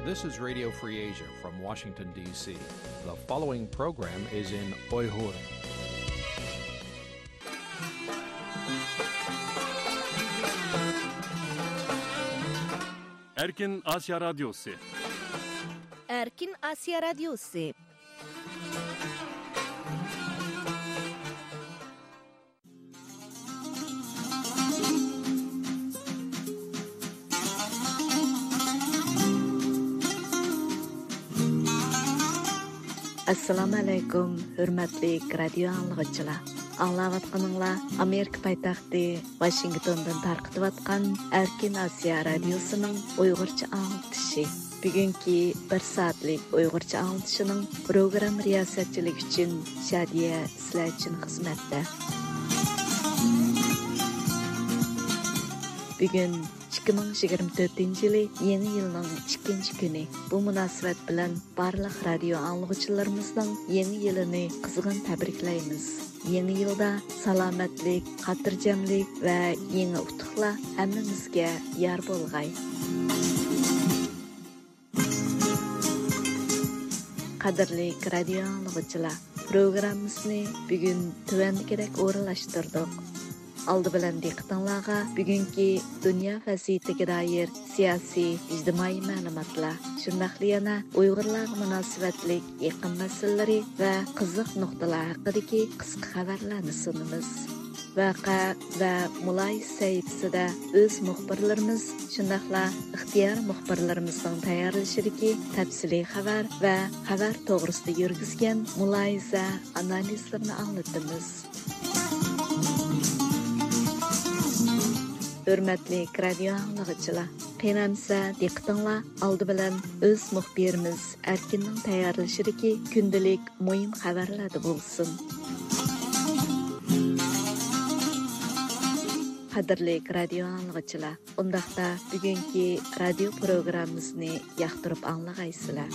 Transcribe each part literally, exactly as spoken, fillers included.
This is Radio Free Asia from Washington, D C. The following program is in Uyghur. Erkin Asya Radyosu. Erkin Asya Radyosu. ئەسسالامۇ ئەلەيكۇم، ھۆرمەتلىك رادىيو ئاڭلىغۇچىلار. ئاڭلاۋاتقىنىڭلار ئامېرىكا پايتەختى ۋاشىنگتوندىن تارقىتىۋاتقان ئەركىن ئاسىيا رادىيوسىنىڭ ئۇيغۇرچە ئاڭلىتىشى. بۈگۈنكى بىر سائەتلىك ئۇيغۇرچە ئاڭلىتىشىنىڭ پروگرامما رىياسەتچىلىكى ئۈچۈن شادىيە سىلەر ئۈچۈن خىزمەتتە. بۈگۈن ئىككى مىڭ يىگىرمە تۆتىنچى يىلى يېڭى يىلنىڭ ئىككىنچى كۈنى. بۇ مۇناسىۋەت بىلەن بارلىق رادىيو ئاڭلىغۇچىلىرىمىزنىڭ يېڭى يىلىنى قىزغىن تەبرىكلەيمىز. يېڭى يىلدا سالامەتلىك، خاتىرجەملىك ۋە يېڭى ئۇتۇقلار ھەممىمىزگە يار بولغاي. قەدىرلىك رادىيو ئاڭلىغۇچىلار، پروگراممىسىنى بۈگۈن تۆۋەندىكىدەك ئورۇنلاشتۇردۇق. ئالدى بىلەن دىققىتىڭلارغا بۈگۈنكى دۇنيا ۋەزىيىتىگە دائىر سىياسىي، ئىجتىمائىي مەلۇماتلار، شۇنداقلا يەنە ئۇيغۇرلارغا مۇناسىۋەتلىك يېقىن مەسىلىلىرى ۋە قىزىق نۇقتىلار ھەققىدىكى قىسقا خەۋەرلەرنى سۇنىمىز. ۋەقە ۋە مۇلاھىزە سەھىپىسىدە ئۆز مۇخبىرلىرىمىز، شۇنداقلا ئىختىيارىي مۇخبىرلىرىمىزنىڭ تەييارلىشىدىكى تەپسىلىي خەۋەر ۋە خەۋەر توغرىسىدا يۈرگۈزگەن مۇلاھىزە، ئانالىزلىرىنى ئاڭلىتىمىز. ھۆرمەتلىك رادىيو ئاڭلىغۇچىلار، قېنى ئەمسە دىققىتىڭلار ئالدى بىلەن ئۆز مۇخبىرىمىز ئەركىننىڭ تەييارلىشىدىكى كۈندىلىك مۇھىم خەۋەرلەردە بولسۇن. قەدىرلىك رادىيو ئاڭلىغۇچىلار، ئۇنداقتا بۈگۈنكى رادىيو پروگراممىمىزنى ياقتۇرۇپ ئاڭلىغايسىلەر.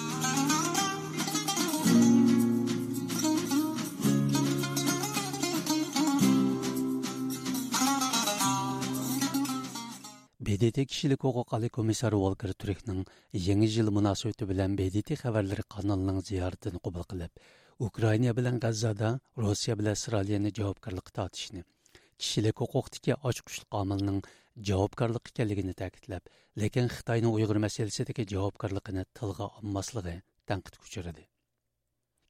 ب د ت كىشىلىك ھوقۇق ئالىي كومىسسارى ۋولكېر تۈركنىڭ يېڭى يىل مۇناسىۋىتى بىلەن ب د ت خەۋەرلىرى قانىلىنىڭ زىيارىتىنى قوبۇل قىلىپ، ئۇكرائىنا بىلەن غەززادا روسىيە بىلەن ئىسرائىلىيەنى جاۋابكارلىققا تارتىشنى، كىشىلىك ھوقۇقتىكى ئاچقۇچلۇق ئامىلنىڭ جاۋابكارلىق ئىكەنلىكىنى تەكىتلەپ، لېكىن خىتاينىڭ ئۇيغۇر مەسىلىسىدىكى جاۋابكارلىقىنى تىلغا ئالماسلىقى تەنقىدكە ئۇچرىدى.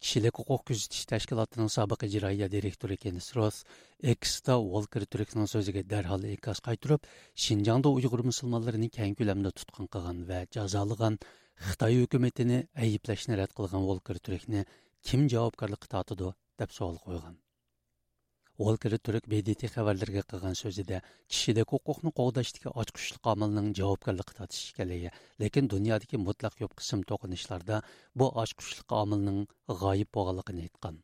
كىشىلىك ھوقۇق كۆزىتىش تەشكىلاتىنىڭ سابىق ئىجرائىيە دىرېكتورى كېنس روس ئېكستا ۋولكېر تۈركنىڭ سۆزىگە دەرھال ئىنكاس قايتۇرۇپ، شىنجاڭدا ئۇيغۇر مۇسۇلمانلىرىنى كەڭ كۆلەمدە تۇتقۇن قىلغان ۋە جازالىغان خىتاي ھۆكۈمىتىنى ئەيىبلەشنى رەت قىلغان ۋولكېر تۈركنى كىم جاۋابكارلىققا تارتىدۇ، دەپ سوئال قويغان. ۋولكېر تۈرك ب د ت خەۋەرلىرىگە قىلغان سۆزىدە، كىشىلىك ھوقۇقنى قوغداشتىكى ئاچقۇچلۇق ئامىلنىڭ جاۋابكارلىققا تارتىش ئىكەنلىكى، لېكىن دۇنيادىكى مۇتلەق كۆپ قىسىم توقۇنۇشلاردا بۇ ئاچقۇچلۇق ئامىلنىڭ غايىب بولغانلىقىنى ئېيتقان.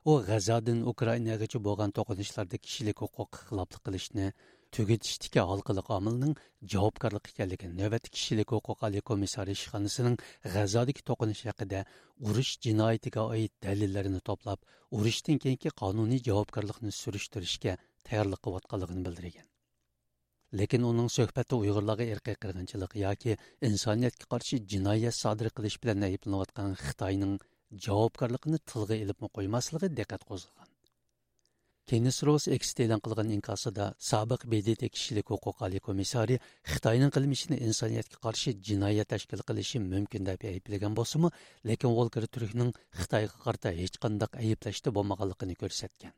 ئۇ غەززادىن ئۇكرائىناغىچە بولغان توقۇنۇشلاردا كىشىلىك ھوقۇققا خىلاپلىق قىلىشنى تۈگىتىشتىكى ھالقىلىق ئامىلنىڭ جاۋابكارلىق ئىكەنلىكىنى، نۆۋەتتە كىشىلىك ھوقۇق ئالىي كومىسسارى ئىشخانىسىنىڭ غەززادىكى توقۇنۇش ھەققىدە ئۇرۇش جىنايىتىگە ئائىت دەلىللەرنى توپلاپ، ئۇرۇشتىن كېيىنكى قانۇنىي جاۋابكارلىقنى سۈرۈشتۈرۈشكە تەييارلىق قىلىۋاتقانلىقىنى بىلدۈرگەن. لېكىن ئۇنىڭ سۆھبەتتە ئۇيغۇرلارغا ئىرقىي قىرغىنچىلىق ياكى ئىنسانىيەتكە قارشى جىنايەت سادىر قىلىش بىلەن ئەيىبلىنىۋاتقان خىتاينىڭ جاۋابكارلىقىنى تىلغا ئېلىپمۇ قويماسلىقى دىققەت قوزغىغان. كېنس روس ئېكستا ئېلان قىلغان ئىنكاسىدا، سابىق ب د ت كىشىلىك ھوقۇق ئالىي كومىسسارى خىتاينىڭ قىلمىشىنى ئىنسانىيەتكە قارشى جىنايەت تەشكىل قىلىشى مۇمكىن دەپ ئەيىبلىگەن بولسىمۇ، لېكىن ۋولكېر تۈركنىڭ خىتايغا قارىتا ھېچقانداق ئەيىبلەشتە بولمىغانلىقىنى كۆرسەتكەن.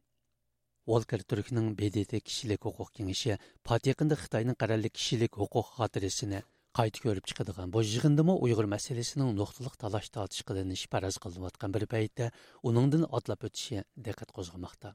ۋولكېر تۈركنىڭ ب د ت كىشىلىك ھوقۇق كېڭىشى پات يېقىندا خىتاينىڭ قەرەللىك كىشىلىك ھوقۇق خاتىرىسىنى قايتا كۆرۈپ چىقىدىغان بۇ يىغىندىمۇ ئۇيغۇر مەسىلىسىنىڭ نۇقتىلىق تالاش-تارتىش قىلىنىشى پەرەز قىلىنىۋاتقان بىر پەيتتە، ئۇنىڭدىن ئاتلاپ ئۆتۈشى دىققەت قوزغىماقتا.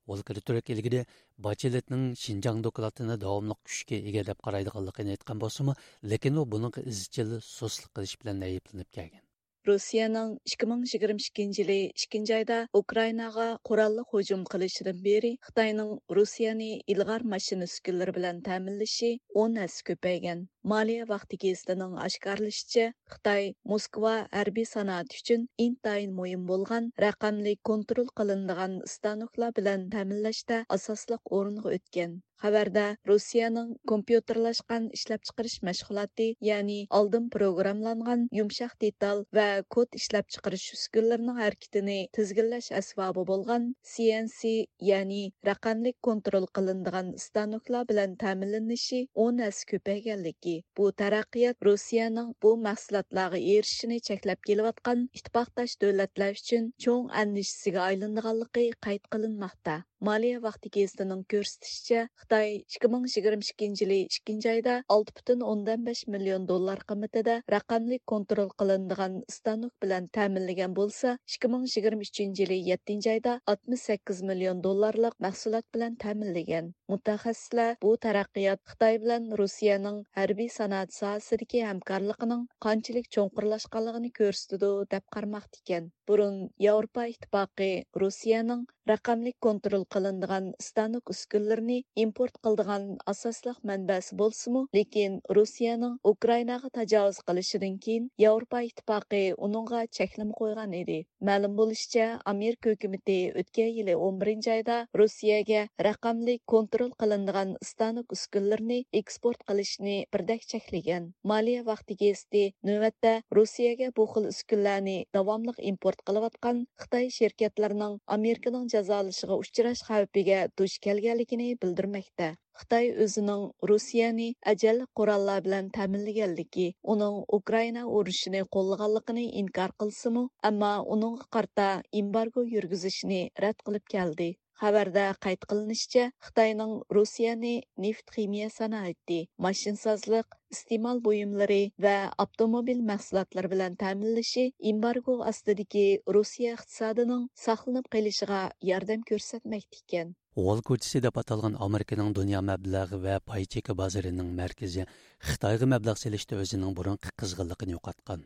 ۋولكېر تۈرك ئىلگىرى باچېلېتنىڭ شىنجاڭ دوكلاتىنى داۋاملىق كۈچكە ئىگە دەپ قارايدىغانلىقىنى ئېيتقان بولسىمۇ، لېكىن ئۇ بۇنىڭغا ئىزچىل سۇسلۇق قىلىش بىلەن ئەيىبلىنىپ كەلگەن. روسىيەنىڭ ئىككى مىڭ يىگىرمە ئىككىنچى يىلى ئىككىنچى ئايدا ئۇكرائىناغا قوراللىق ھۇجۇم قىلىشىدىن بېرى خىتاينىڭ روسىيەنى ئىلغار ماشىنا ئۈسكۈنىلىرى بىلەن تەمىنلىشى ئون ھەسسە كۆپەيگەن. مالىيە ۋاقتى گېزىتىنىڭ ئاشكارىلىشىچە، خىتاي موسكۋا ھەربىي سانائەت ئۈچۈن ئىنتايىن مۇھىم بولغان رەقەملىك كونترول قىلىنىدىغان ئىستانوكلار بىلەن تەمىنلەشتە ئاساسلىق ئورۇنغا ئۆتكەن. خەۋەردە روسىيەنىڭ كومپيۇتېرلاشقان ئىشلەپچىقىرىش مەشغۇلاتى، يەنى ئالدىن پروگراملانغان يۇمشاق دېتال ۋە كود ئىشلەپچىقىرىش ئۈسكۈنىلىرىنىڭ ھەرىكىتىنى تىزگىنلەش ئەسۋابى بولغان سى ئېن سى، يەنى رەقەملىك كونترول قىلىنىدىغان ئىستانوكلار بىلەن تەمىنلىنىشى ئون ھەسسە كۆپەيگەنلىكى، بۇ تەرەققىيات روسىيەنىڭ بۇ مەھسۇلاتلارغا ئېرىشىشىنى چەكلەپ كېلىۋاتقان ئىتتىپاقداش دۆلەتلەر ئۈچۈن چوڭ ئەندىشىسىگە ئايلىنىدىغانلىقى قەيت قىلىنماقتا. مالىيە ۋاقتى گېزىتىنىڭ كۆرسىتىشىچە، خىتاي ئىككى مىڭ يىگىرمە ئىككىنچى يىلى ئىككىنچى ئايدا ئالتە پۈتۈن ئوندىن بەش مىليون دوللار قىممىتىدە رەقەملىك كونترول قىلىنىدىغان ئىستانوك بىلەن تەمىنلىگەن بولسا، ئىككى مىڭ يىگىرمە ئۈچىنچى يىلى يەتتىنچى ئايدا ئاتمىش سەككىز مىليون دوللارلىق مەھسۇلات بىلەن تەمىنلىگەن. مۇتەخەسسىسلەر بۇ تەرەققىيات خىتاي بىلەن روسىيەنىڭ ھەربىي سانائەت ساھەسىدىكى ھەمكارلىقىنىڭ قانچىلىك چوڭقۇرلاشقانلىقىنى كۆرسىتىدۇ، دەپ قارىماقتا ئىكەن. بۇرۇن ياۋروپا ئىتتىپاقى روسىيەنىڭ رەقەملىك كونترول قىلىنىدىغان ئىستانوك ئۈسكۈنىلىرىنى ئىمپورت قىلىدىغان ئاساسلىق مەنبەسى بولسىمۇ، لېكىن روسىيەنىڭ ئۇكرائىناغا تاجاۋۇز قىلىشىدىن كېيىن ياۋروپا ئىتتىپاقى ئۇنىڭغا چەكلىمە قويغان ئىدى. مەلۇم بولۇشىچە، ئامېرىكا ھۆكۈمىتى ئۆتكەن يىلى ئون بىرىنچى ئايدا روسىيەگە رەقەملىك كونترول قىلىنىدىغان ئىستانوك ئۈسكۈنىلىرىنى ئېكسپورت قىلىشنى بىردەك چەكلىگەن. مالىيە ۋاقتى گېزىتى نۆۋەتتە روسىيەگە بۇ خىل ئۈسكۈنىلەرنى داۋاملىق ئىمپورت قىلىۋاتقان خىتاي شىركەتلىرىنىڭ ئامېرىكىنىڭ جازالىشىغا ئۇچراش خەۋپىگە دۇچ كەلگەنلىكىنى بىلدۈرمەكتە. خىتاي ئۆزىنىڭ روسىيەنى ئەجەللىك قوراللار بىلەن تەمىنلىگەنلىكى، ئۇنىڭ ئۇكرائىنا ئۇرۇشىنى قوللىغانلىقىنى ئىنكار قىلسىمۇ، ئەمما ئۇنىڭغا قارىتا ئېمبارگو يۈرگۈزۈشنى رەت قىلىپ كەلدى. خەۋەردە قەيت قىلىنىشىچە، خىتاينىڭ روسىيەنى نېفىت خىمىيە سانائىتى، ماشىنىسازلىق، ئىستېمال بۇيۇملىرى ۋە ئاپتوموبىل مەھسۇلاتلىرى بىلەن تەمىنلىشى ئېمبارگو ئاستىدىكى روسىيە ئىقتىسادىنىڭ ساقلىنىپ قېلىشىغا ياردەم كۆرسەتمەكتە ئىكەن. ۋول كوچىسى دەپ ئاتالغان ئامېرىكىنىڭ دۇنيا مەبلەغ ۋە پاي چېكى بازىرىنىڭ مەركىزى خىتايغا مەبلەغ سېلىشتا ئۆزىنىڭ بۇرۇنقى قىزغىنلىقىنى يوقاتقان.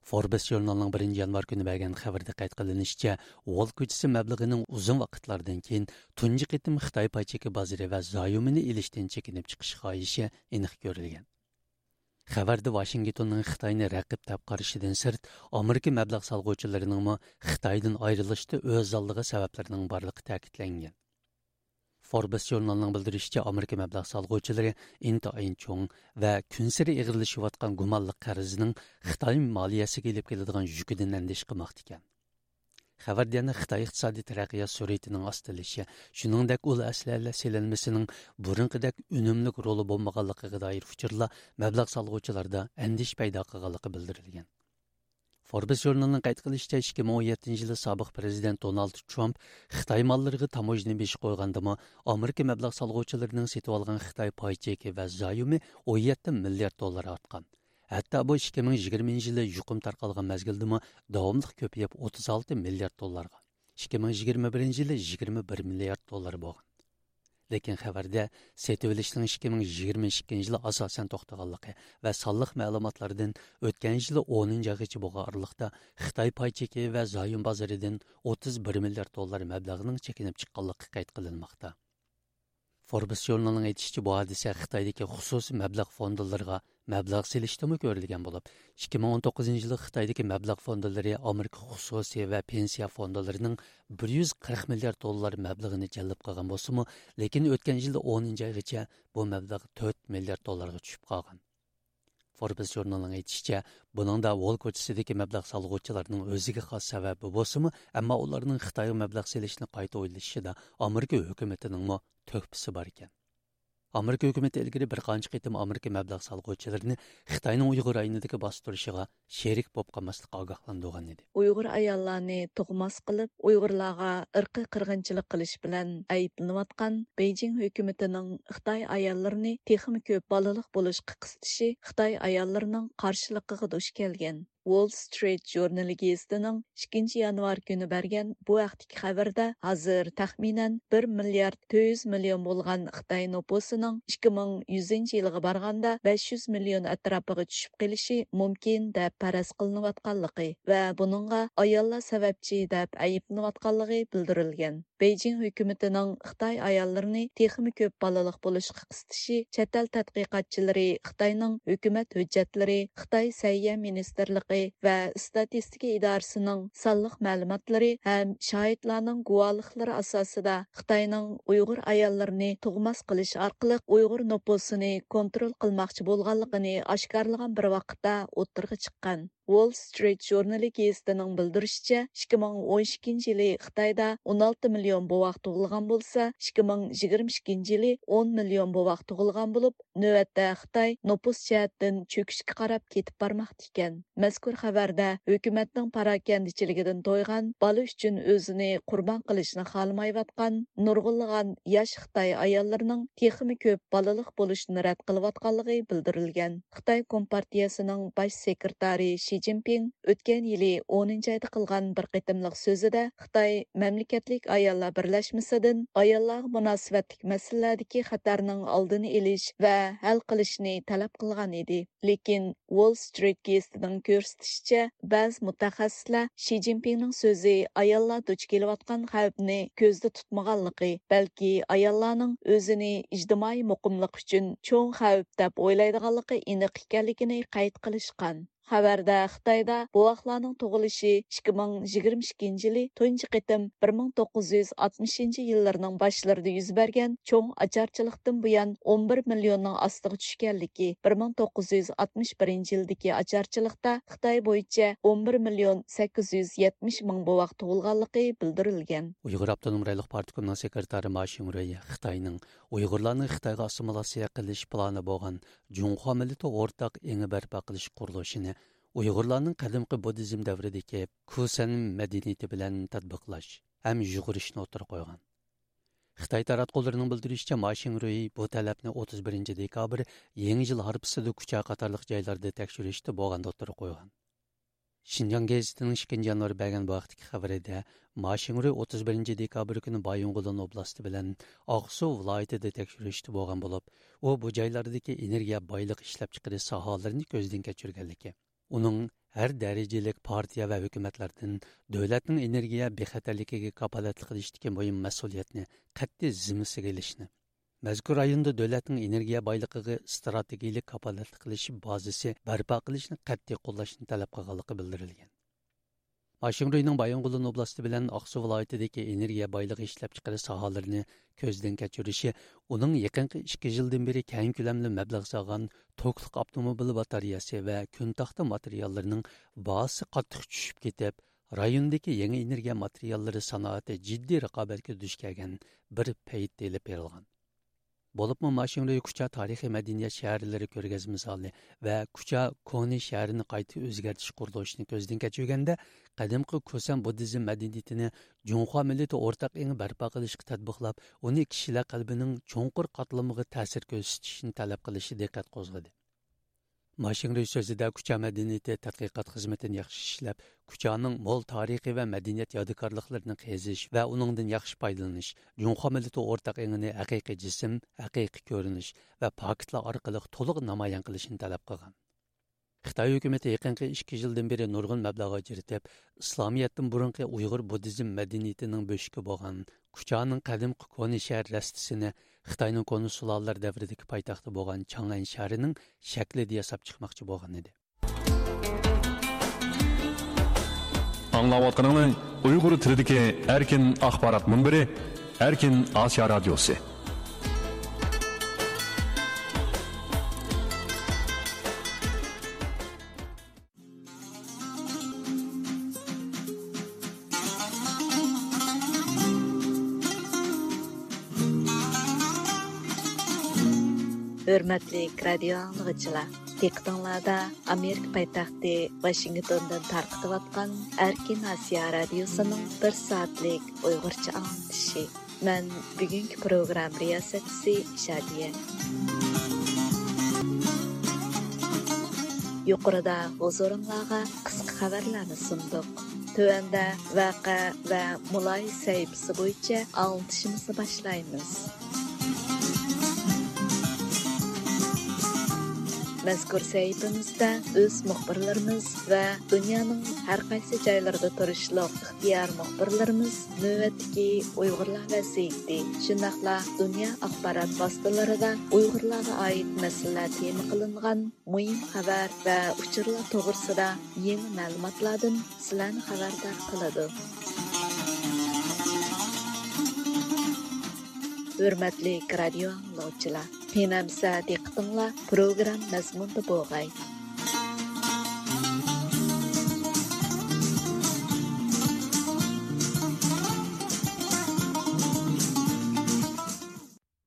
فوربس ژۇرنىلىنىڭ بىرىنچى يانۋار كۈنى بەرگەن خەۋىرىدە قەيت قىلىنىشىچە، ۋول كوچىسى مەبلىغىنىڭ ئۇزۇن ۋاقىتلاردىن كېيىن تۇنجى قېتىم خىتاي پاي چېكى بازىرى ۋە زايومىنى ئېلىشتىن چېكىنىپ چىقىش خاھىشى ئېنىق كۆرۈلگەن. خەۋەردە ۋاشىنگتوننىڭ خىتاينى رەقىب دەپ قارىشىدىن سىرت، ئامېرىكا مەبلەغ سالغۇچىلىرىنىڭمۇ خىتايدىن ئايرىلىشتا ئۆز ئالدىغا سەۋەبلىرىنىڭ بارلىقى تەكىتلەنگەن. فوربس ژۇرنىلىنىڭ بىلدۈرۈشىچە، ئامېرىكا مەبلەغ سالغۇچىلىرى ئىنتايىن چوڭ ۋە كۈنسېرى ئېغىرلىشىۋاتقان گۇمانلىق قەرزنىڭ خىتاي مالىيەسىگە ئېلىپ كېلىدىغان يۈكىدىن ئەندىشە قىلماقتا ئىكەن. خەۋەردە يەنە خىتاي ئىقتىسادىي تەرەققىيات سۈرئىتىنىڭ ئاستىلىشى، شۇنىڭدەك ئۇل ئەسلىھەلەر سېلىنمىسىنىڭ بۇرۇنقىدەك ئۈنۈملۈك رولى بولمىغانلىقىغا دائىر ئۇچۇرلار مەبلەغ سالغۇچىلاردا ئەندىشە پەيدا قىلغانلىقى بىلدۈرۈلگەن. فوربس ژۇرنىلىنىڭ قەيت قىلىشىچە، ئىككى مىڭ ئون يەتتىنچى يىلى سابىق پىرېزىدېنت دونالد ترامپ خىتاي ماللىرىغا تاموژنا بېشى قويغاندىمۇ، ئامېرىكا مەبلەغ سالغۇچىلىرىنىڭ سېتىۋالغان خىتاي پاي چېكى ۋە زايومى ئون يەتتە مىليارد دوللار ئارتقان. ھەتتا بۇ ئىككى مىڭ يىگىرمىنچى يىلى يۇقۇم تارقالغان مەزگىلدىمۇ داۋاملىق كۆپىيىپ، ئوتتۇز ئالتە مىليارد دوللارغا، ئىككى مىڭ يىگىرمە بىرىنچى يىلى يىگىرمە بىر مىليارد دوللار بولغان. لېكىن خەۋەردە سېتىۋېلىشنىڭ ئىككى مىڭ يىگىرمە ئىككىنچى يىلى ئاساسەن توختىغانلىقى ۋە سانلىق مەلۇماتلاردىن ئۆتكەن يىلى ئونىنچى ئايغىچە بولغان ئارىلىقتا خىتاي پاي چېكى ۋە زايوم بازىرىدىن ئوتتۇز بىر مىليارد دوللار مەبلەغنىڭ چېكىنىپ چىققانلىقى قەيت قىلىنماقتا. فوربس ژۇرنىلىنىڭ ئېيتىشىچە، بۇ ھادىسە خىتايدىكى خۇسۇسىي مەبلەغ فوندلىرىغا مەبلەغ سېلىشتىمۇ كۆرۈلگەن بولۇپ، ئىككى مىڭ ئون توققۇزىنچى يىلى خىتايدىكى مەبلەغ فوندلىرى ئامېرىكا خۇسۇسىي ۋە پېنسىيە فوندلىرىنىڭ بىر يۈز قىرىق مىليارد دوللار مەبلىغىنى جەلپ قىلغان بولسىمۇ، لېكىن ئۆتكەن يىلى ئونىنچى ئايغىچە بۇ مەبلەغ تۆت مىليارد دوللارغا چۈشۈپ قالغان. فوربس ژۇرنىلىنىڭ ئېيتىشىچە، بۇنىڭدا ۋول كوچىسىدىكى مەبلەغ سالغۇچىلارنىڭ ئۆزىگە خاس سەۋەبى بولسىمۇ، ئەمما ئۇلارنىڭ خىتايغا مەبلەغ سېلىشنى قايتا ئويلىشىشىدا ئامېرىكا ھۆكۈمىتىنىڭمۇ تۆھپىسى بار ئىكەن. ئامېرىكا ھۆكۈمىتى ئىلگىرى بىر قانچە قېتىم ئامېرىكا مەبلەغ سالغۇچىلىرىنى خىتاينىڭ ئۇيغۇر رايونىدىكى باستۇرۇشىغا شېرىك بولۇپ قالماسلىققا ئاگاھلاندۇرغان ئىدى. ئۇيغۇر ئاياللارنى تۇغماس قىلىپ، ئۇيغۇرلارغا ئىرقىي قىرغىنچىلىق قىلىش بىلەن ئەيىبلىنىۋاتقان بېيجىڭ ھۆكۈمىتىنىڭ خىتاي ئاياللىرىنى تېخىمۇ كۆپ بالىلىق بولۇشقا قىستىشى خىتاي ئاياللىرىنىڭ قارشىلىقىغا دۇچ كەلگەن. ۋول سترىت ژۇرنىلى گېزىتىنىڭ ئىككىنچى يانۋار كۈنى بەرگەن بۇ ھەقتىكى خەۋىرىدە، ھازىر تەخمىنەن بىر مىليارد تۆت يۈز مىليون بولغان خىتاي نوپۇسىنىڭ ئىككى مىڭ يۈزىنچى يىلىغا بارغاندا بەش يۈز مىليون ئەتراپىغا چۈشۈپ قېلىشى مۇمكىن دەپ پەرەز قىلىنىۋاتقانلىقى ۋە بۇنىڭغا ئاياللار سەۋەبچى دەپ ئەيىبلىنىۋاتقانلىقى بىلدۈرۈلگەن. بېيجىڭ ھۆكۈمىتىنىڭ خىتاي ئاياللىرىنى تېخىمۇ كۆپ بالىلىق بولۇشقا قىستىشى چەت ئەل تەتقىقاتچىلىرى خىتاينىڭ ھۆكۈمەت ھۆججەتلىرى، خىتاي سەھىيە مىنىستىرلىقى ۋە ئىستاتىستىكا ئىدارىسىنىڭ سانلىق مەلۇماتلىرى ھەم شاھىتلارنىڭ گۇۋاھلىقلىرى ئاساسىدا خىتاينىڭ ئۇيغۇر ئاياللىرىنى تۇغماس قىلىش ئارقىلىق ئۇيغۇر نوپۇسىنى كونترول قىلماقچى بولغانلىقىنى ئاشكارىلىغان بىر ۋاقىتتا ئوتتۇرىغا چىققان. ۋول سترىت ژۇرنىلى گېزىتىنىڭ بىلدۈرۈشىچە، ئىككى مىڭ ئون ئىككىنچى يىلى خىتايدا ئون ئالتە مىليون بوۋاق تۇغۇلغان بولسا، ئىككى مىڭ يىگىرمە ئىككىنچى يىلى ئون مىليون بوۋاق تۇغۇلغان بولۇپ، نۆۋەتتە خىتاي نوپۇس جەھەتتىن چۆكۈشكە قاراپ كېتىپ بارماقتا ئىكەن. مەزكۇر خەۋەردە ھۆكۈمەتنىڭ پاراكەندىچىلىكىدىن تويغان، بالا ئۈچۈن ئۆزىنى قۇربان قىلىشنى خالىمايۋاتقان نۇرغۇنلىغان ياش خىتاي ئاياللىرىنىڭ تېخىمۇ كۆپ بالىلىق بولۇشىنى رەت قىلىۋاتقانلىقى بىلدۈرۈلگەن. خىتاي كومپارتىيەسىنىڭ باش سېكرېتارى شى جىنپىڭ ئۆتكەن يىلى ئونىنچى ئايدا قىلغان بىر قېتىملىق سۆزىدە خىتاي مەملىكەتلىك ئاياللار بىرلەشمىسىدىن ئاياللارغا مۇناسىۋەتلىك مەسىلىلەردىكى خەتەرنىڭ ئالدىنى ئېلىش ۋە ھەل قىلىشنى تەلەپ قىلغان ئىدى. لېكىن ۋول سترىت گېزىتىنىڭ كۆرسىتىشىچە، بەزى مۇتەخەسسىسلەر شى جىنپىڭنىڭ سۆزى ئاياللار دۇچ كېلىۋاتقان خەۋپنى كۆزدە تۇتمىغانلىقى، بەلكى ئاياللارنىڭ ئۆزىنى ئىجتىمائىي مۇقىملىق ئۈچۈن چوڭ خەۋپ دەپ ئويلايدىغانلىقى ئېنىق ئىكەنلىكىنى قەيت قىلىشقان. خەۋەردە خىتايدا بوۋاقلارنىڭ تۇغۇلۇشى ئىككى مىڭ يىگىرمە ئىككىنچى يىلى تۇنجى قېتىم بىر مىڭ توققۇز يۈز ئاتمىشىنچى يىللىرىنىڭ باشلىرىدا يۈز بەرگەن چوڭ ئاچارچىلىقتىن بۇيان ئون بىر مىليوننىڭ ئاستىغا چۈشكەنلىكى، بىر مىڭ توققۇز يۈز ئاتمىش بىرىنچى يىلدىكى ئاچارچىلىقتا خىتاي بويىچە ئون بىر مىليون سەككىز يۈز يەتمىش مىڭ بوۋاق تۇغۇلغانلىقى بىلدۈرۈلگەن. ئۇيغۇر ئاپتونوم رايونلۇق پارتكومنىڭ سېكرېتارى ما شىڭرۇي خىتاينىڭ ئۇيغۇرلارنى خىتايغا ئاسسىمىلياتسىيە قىلىش پىلانى بولغان جۇڭخۇا مىللىتى ئورتاق ئېڭى بەرپا قىلىش قۇرۇلۇشىنى ئۇيغۇرلارنىڭ قەدىمكى بۇددىزم دەۋرىدىكى كۇسەن مەدەنىيىتى بىلەن تەتبىقلاش ھەم يۇغۇرۇشنى ئوتتۇرىغا قويغان. خىتاي تاراتقۇلىرىنىڭ بىلدۈرۈشىچە، ما شىڭرۇي بۇ تەلەپنى ئوتتۇز بىرىنچى دېكابىر، يېڭى يىل ھارپىسىدا كۇچا قاتارلىق جايلاردا تەكشۈرۈشتە بولغاندا ئوتتۇرىغا قويغان. شىنجاڭ گېزىتىنىڭ ئىككىنچى يانۋار بەرگەن بۇ ھەقتىكى خەۋىرىدە، ما شىڭرۇي ئوتتۇز بىرىنچى دېكابىر كۈنى بايىنغولىن ئوبلاستى بىلەن ئاقسۇ ۋىلايىتىدە تەكشۈرۈشتە بولغان بولۇپ، ئۇ بۇ جايلاردىكى ئېنېرگىيە بايلىقى ئىشلەپچىقىرىش ساھەلىرىنى كۆزدىن كەچۈرگەنلىكى، ئۇنىڭ ھەر دەرىجىلىك پارتىيە ۋە ھۆكۈمەتلەردىن دۆلەتنىڭ ئېنېرگىيە بىخەتەرلىكىگە كاپالەتلىك قىلىشتىكى مۇھىم مەسئۇلىيەتنى قەتئىي زىممىسىگە ئېلىشنى، مەزكۇر رايوندا دۆلەتنىڭ ئېنېرگىيە بايلىقىغا ئىستراتېگىيىلىك كاپالەتلىك قىلىش بازىسى بەرپا قىلىشنى قەتئىي قوللاشنى تەلەپ قىلغانلىقى بىلدۈرۈلگەن. ما شىڭرۇينىڭ بايىنغولىن ئوبلاستى بىلەن ئاقسۇ ۋىلايىتىدىكى ئېنېرگىيە بايلىقى ئىشلەپچىقىرىش ساھەلىرىنى كۆزدىن كەچۈرۈشى ئۇنىڭ يېقىنقى ئىككى يىلدىن بېرى كەڭ كۆلەملىك مەبلەغ سالغان توكلۇق ئاپتوموبىل باتارېيەسى ۋە كۈن تاختا ماتېرىياللىرىنىڭ باھاسى قاتتىق چۈشۈپ كېتىپ، رايوندىكى يېڭى ئېنېرگىيە ماتېرىياللىرى سانائىتى جىددىي رىقابەتكە دۇچ كەلگەن بىر پەيتتە ئېلىپ بېرىلغان. بولۇپمۇ ما شىڭرۇي كۇچا تارىخىي مەدەنىيەت شەھەرلىرى كۆرگەزمە زالى ۋە كۇچا كونا شەھىرىنى قايتا ئۆزگەرتىش قۇرۇلۇشىنى كۆزدىن كەچۈرگەندە، قەدىمكى كۇسەن بۇددىزم مەدەنىيىتىنى جۇڭخۇا مىللىتى ئورتاق ئېڭى بەرپا قىلىشقا تەتبىقلاپ، ئۇنى كىشىلەر قەلبىنىڭ چوڭقۇر قاتلىمىغا تەسىر كۆرسىتىشنى تەلەپ قىلىشى دىققەت قوزغىدى. ما شىڭرۇي سۆزىدە كۇچا مەدەنىيىتى تەتقىقات خىزمىتىنى ياخشى ئىشلەپ، كۇچانىڭ مول تارىخىي ۋە مەدەنىيەت يادىكارلىقلىرىنى قېزىش ۋە ئۇنىڭدىن ياخشى پايدىلىنىش، جۇڭخۇا مىللىتى ئورتاق ئېڭىنى ھەقىقىي جىسىم، ھەقىقىي كۆرۈنۈش ۋە پاكىتلار ئارقىلىق تولۇق نامايان قىلىشنى تەلەپ قىلغان. خىتاي ھۆكۈمىتى يېقىنقى ئىككى يىلدىن بېرى نۇرغۇن مەبلەغ ئاجرىتىپ، ئىسلامىيەتتىن بۇرۇنقى ئۇيغۇر بۇددىزم مەدەنىيىتىنىڭ بۆشۈكى بولغان كۇچانىڭ قەدىمكى كونا شەھەر رەستىسىنى خىتاينىڭ كونا سۇلالىلەر دەۋرىدىكى پايتەختى بولغان چاڭئەن شەھىرىنىڭ شەكلىدە ياساپ چىقماقچى بولغان ئىدى. ئاڭلاۋاتقىنىڭلار ئۇيغۇر تىلىدىكى ئەركىن ئاخبارات مۇنبىرى، ئەركىن ئاسىيا رادىيوسى. ھۆرمەتلىك رادىيو ئاڭلىغۇچىلار، دىققىتىڭلاردا ئامېرىكا پايتەختى ۋاشىنگتوندىن تارقىتىۋاتقان ئەركىن ئاسىيا رادىيوسىنىڭ بىر سائەتلىك ئۇيغۇرچە ئاڭلىتىشى. مەن بۈگۈنكى پروگرامما رىياسەتچىسى شادىيە. يۇقىرىدا ھۇزۇرۇڭلارغا قىسقا خەۋەرلەرنى سۇندۇق. تۆۋەندە ۋەقە ۋە مۇلاھىزە سەھىپىسى بويىچە ئاڭلىتىشىمىزنى باشلايمىز. مەزكۇر سەھىپىمىزدە ئۆز مۇخبىرلىرىمىز ۋە دۇنيانىڭ ھەر قايسى جايلىرىدا تۇرۇشلۇق ئىختىيارىي مۇخبىرلىرىمىز نۆۋەتتىكى ئۇيغۇرلار ۋەزىيىتى، شۇنداقلا دۇنيا ئاخبارات ۋاسىتىلىرىدا ئۇيغۇرلارغا ئائىت مەسىلىلەر تېما قىلىنغان مۇھىم خەۋەر ۋە ئۇچۇرلار توغرىسىدا يېڭى مەلۇماتلاردىن سىلەرنى خەۋەردار قىلىدۇ. ھۆرمەتلىك رادىيو ئاڭلىغۇچىلار، قېنى ئەمىسە دىققىتىڭلار پروگرامما مەزمۇنىدا بولغاي.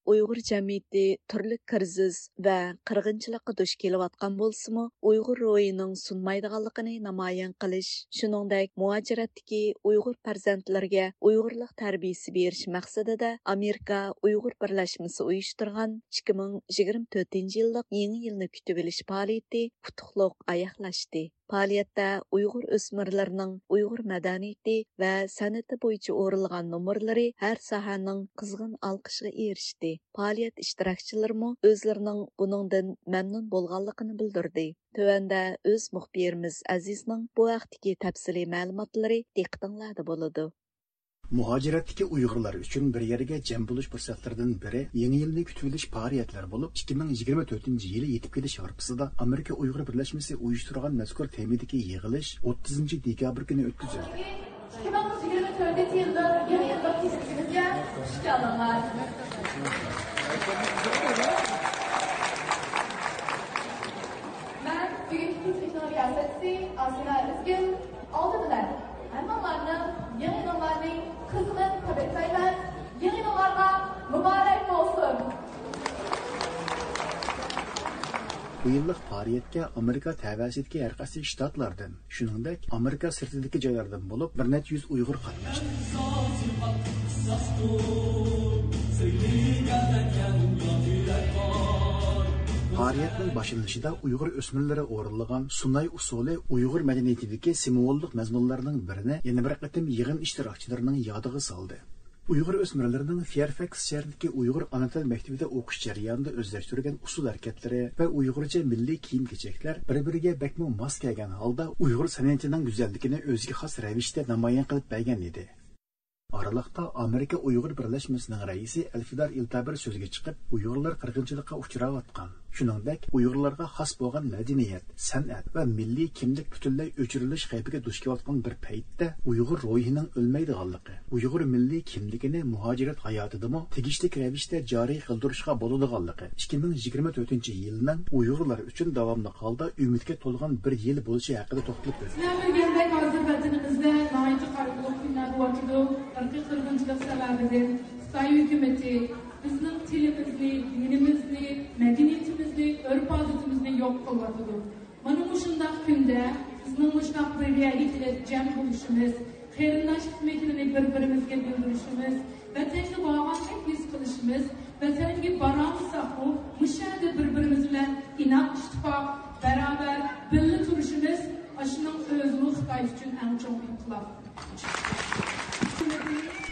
ئۇيغۇر جەمئىيىتى تۈرلۈك كىرىزىس ۋە قىرغىنچىلىققا دۇچ كېلىۋاتقان بولسىمۇ، ئۇيغۇر روھىنىڭ سۇنمايدىغانلىقىنى نامايان قىلىش، شۇنىڭدەك مۇھاجىرەتتىكى ئۇيغۇر پەرزەنتلىرىگە ئۇيغۇرلۇق تەربىيىسى بېرىش مەقسىتىدە ئامېرىكا ئۇيغۇر بىرلەشمىسى ئۇيۇشتۇرغان ئىككى مىڭ يىگىرمە تۆتىنچى يىللىق يېڭى يىلنى كۈتۈۋېلىش پائالىيىتى ئۇتۇقلۇق ئاياغلاشتى. پائالىيەتتە ئۇيغۇر ئۆسمۈرلىرىنىڭ ئۇيغۇر مەدەنىيىتى ۋە سەنئىتى بويىچە ئورۇنلىغان نومۇرلىرى ھەر ساھەنىڭ قىزغىن ئالقىشىغا ئېرىشتى. پائالىيەت ئىشتىراكچىلىرىمۇ ئۆزلىرىنىڭ بۇنىڭدىن مەمنۇن بولغانلىقىنى بىلدۈردى. تۆۋەندە ئۆز مۇخبىرىمىز ئەزىزنىڭ بۇ ھەقتىكى تەپسىلىي مەلۇماتلىرى دىققىتىڭلاردا بولىدۇ. مۇھاجىرەتتىكى ئۇيغۇرلار ئۈچۈن بىر يەرگە جەم بولۇش پۇرسەتلىرىدىن بىرى، يېڭى يىلنى كۈتۈۋېلىش پائالىيەتلىرى بولۇپ، ئىككى مىڭ يىگىرمە تۆتىنچى يىلى يېتىپ كېلىش ھارپىسىدا ئامېرىكا ئۇيغۇر بىرلەشمىسى ئۇيۇشتۇرغان مەزكۇر تېمىدىكى يىغىلىش ئوتتۇزىنچى دېكابىر كۈنى ئۆتكۈزۈلدى. ئىككى مىڭ يىگىرمە تۆتىنچى يىلدا يېڭى يىللىق تەشرىپىمىزگە خۇش كەلدىڭلار. مەن بۈگۈنكى كېچىلىكنىڭ رىياسەتچىسى ئاسىنا ئۆزگۈل. ئالدى بىلەن ھەممىڭلارنى يېڭى يىلىڭلارنى قىزغىن تەبرىكلەيمەن. يېڭى يىلىڭلارغا مۇبارەك بولسۇن! بۇ يىللىق پائالىيەتكە ئامېرىكا تەۋەسىدىكى ھەر قايسى شتاتلاردىن، شۇنىڭدەك ئامېرىكا سىرتىدىكى جايلاردىن بولۇپ بىر نەچچە يۈز ئۇيغۇر قاتناشتى. پائالىيەتنىڭ باشلىنىشىدا ئۇيغۇر ئۆسمۈرلىرى ئورۇنلىغان سۇناي ئۇسسۇلى ئۇيغۇر مەدەنىيىتىدىكى سىمۋوللۇق مەزمۇنلارنىڭ بىرىنى يەنە بىر قېتىم يىغىن ئىشتىراكچىلىرىنىڭ يادىغا سالدى. ئۇيغۇر ئۆسمۈرلىرىنىڭ فېيرفەكس شەھىرىدىكى ئۇيغۇر ئانا تىل مەكتىۋىدە ئوقۇش جەريانىدا ئۆزلەشتۈرگەن ئۇسسۇل ھەرىكەتلىرى ۋە ئۇيغۇرچە مىللىي كىيىم-كېچەكلەر بىر-بىرىگە بەكمۇ ماس كەلگەن ھالدا ئۇيغۇر سەنئىتىنىڭ گۈزەللىكىنى ئۆزىگە خاس رەۋىشتە نامايان قىلىپ بەرگەن ئىدى. ئارىلىقتا ئامېرىكا ئۇيغۇر بىرلەشمىسىنىڭ رەئىسى ئەلفىدار ئىلتابىر سۆزگە چىقىپ، ئۇيغۇرلار قىرغىنچىلىققا ئۇچراۋاتقان، شۇنىڭدەك ئۇيغۇرلارغا خاس بولغان مەدەنىيەت، سەنئەت ۋە مىللىي كىملىك پۈتۈنلەي ئۆچۈرۈلۈش خەۋپىگە دۇچ كېلىۋاتقان بىر پەيتتە ئۇيغۇر روھىنىڭ ئۆلمەيدىغانلىقى، ئۇيغۇر مىللىي كىملىكىنى مۇھاجىرەت ھاياتىدىمۇ تېگىشلىك رەۋىشتە جارى قىلدۇرۇشقا بولىدىغانلىقى، ئىككى مىڭ يىگىرمە تۆتىنچى يىلنىڭ ئۇيغۇرلار ئۈچۈن داۋاملىق ھالدا ئۈمىدكە تولغان بىر يىل بولۇشى ھەققىدە توختىلىپ ئۆتتى. سىلەر بىلگەندەك، ھازىر ۋەتىنىمىزدە ناھايىتى قايغۇلۇق كۈنلەر بولۇۋاتىدۇ. ئىرقىي قىرغىنچىلىق سەۋەبىدىن خىتاي ھۆكۈمىتى بىزنىڭ تىلىمىزنى، دىنىمىزنى، مەدەنىيىتىمىزنى، ئۆرپ-ئادىتىمىزنى يوق قىلىۋاتىدۇ. مانا مۇشۇنداق كۈندە بىزنىڭ مۇشۇنداق بىر يەرگە كېلىپ جەم بولۇشىمىز، قېرىنداشلىق مېھرىنى بىر-بىرىمىزگە بىلدۈرۈشىمىز، ۋەتەنگە بارغاندەك ھېس قىلىشىمىز، ۋەتەنگە بارالمىساقمۇ، مۇشۇ يەردە بىر-بىرىمىز بىلەن ئىناق، ئىتتىپاق، بەرابەر، بىللە تۇرۇشىمىز، ئاشۇنىڭ ئۆزىمۇ خىتاي ئۈچۈن ئەڭ چوڭ ئىنقىلاب.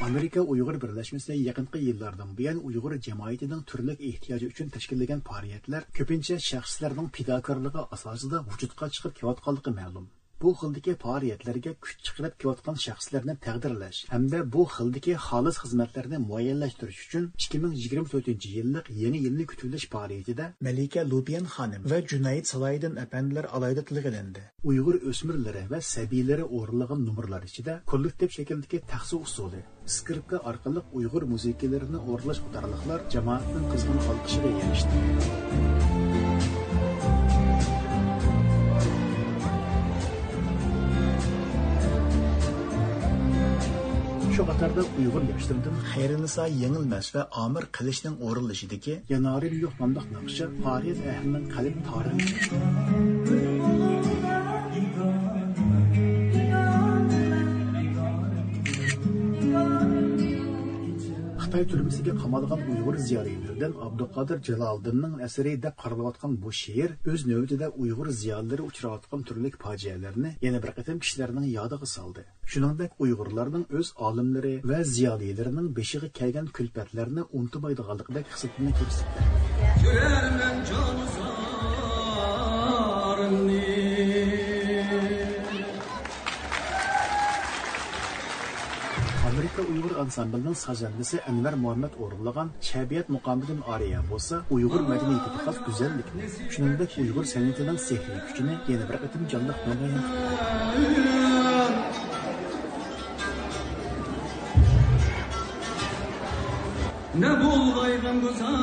ئامېرىكا ئۇيغۇر بىرلەشمىسى يېقىنقى يىللاردىن بۇيان ئۇيغۇر جەمئىيىتىنىڭ تۈرلۈك ئېھتىياجى ئۈچۈن تەشكىللىگەن پائالىيەتلەر كۆپىنچە شەخسلەرنىڭ پىداكارلىقى ئاساسىدا ۋۇجۇدقا چىقىپ كېلىۋاتقانلىقى مەلۇم. بۇ خىلدىكى پائالىيەتلەرگە كۈچ چىقىرىپ كېلىۋاتقان شەخسلەرنى تەقدىرلەش ھەمدە بۇ خىلدىكى خالىس خىزمەتلەرنى مۇئەييەنلەشتۈرۈش ئۈچۈن ئىككى مىڭ يىگىرمە تۆتىنچى يىللىق يېڭى يىلنى كۈتۈۋېلىش پائالىيىتىدە مەلىكە لۇبىيەن خانىم ۋە جۇنەيىد سالاھىدىن ئەپەندىلەر ئالاھىدە تىلغا ئېلىندى. ئۇيغۇر ئۆسمۈرلىرى ۋە سەبىيلىرى ئورۇنلىغان نومۇرلار ئىچىدە كوللېكتىپ شەكىلدىكى تەخسە ئۇسسۇلى، ئىسكرىپكا ئارقىلىق ئۇيغۇر مۇزىكىلىرىنى ئورۇنلاش قاتارلىقلار جامائەتنىڭ قىزغىن ئالقىشىغا ئېرىشتى. شۇ قاتاردا ئۇيغۇر ياشلىرىدىن خەيرىنىسا يېڭىلمەس ۋە ئامىر قىلىچنىڭ ئورۇنلىشىدىكى يانارىم يوق ناملىق ناخشا پارىيەت ئەھلىنىڭ قەلب تارىنى خىتاي تۈرمىسىگە قامالغان ئۇيغۇر زىيالىيلىرىدىن ئابدۇقادىر جالالىدىننىڭ ئەسىرى دەپ قارىلىۋاتقان بۇ شېئىر ئۆز نۆۋىتىدە ئۇيغۇر زىيالىيلىرى ئۇچراۋاتقان تۈرلۈك پاجىئەلەرنى يەنە بىر قېتىم كىشىلەرنىڭ يادىغا سالدى. شۇنىڭدەك ئۇيغۇرلارنىڭ ئۆز ئالىملىرى ۋە زىيالىيلىرىنىڭ بېشىغا كەلگەن كۈلپەتلەرنى ئۇنتۇمايدىغانلىقىدەك خىسلىتىنى كۆرسىتىدۇ. كۆرەرمەن جانسىزلارنى. ئامېرىكا ئۇيغۇر ئانسامبلىنىڭ سازەندىسى ئەنۋەر مۇھەممەد ئورۇنلىغان شەبىيەت مۇقامىدىن ئارىيە بولسا، ئۇيغۇر مەدەنىيىتىگە خاس گۈزەللىكنى، شۇنىڭدەك ئۇيغۇر سەنئىتىنىڭ سېھرىي كۈچىنى يەنە بىر قېتىم جانلىق نامايان قىلدى. نە بولغايغان گۈزەل.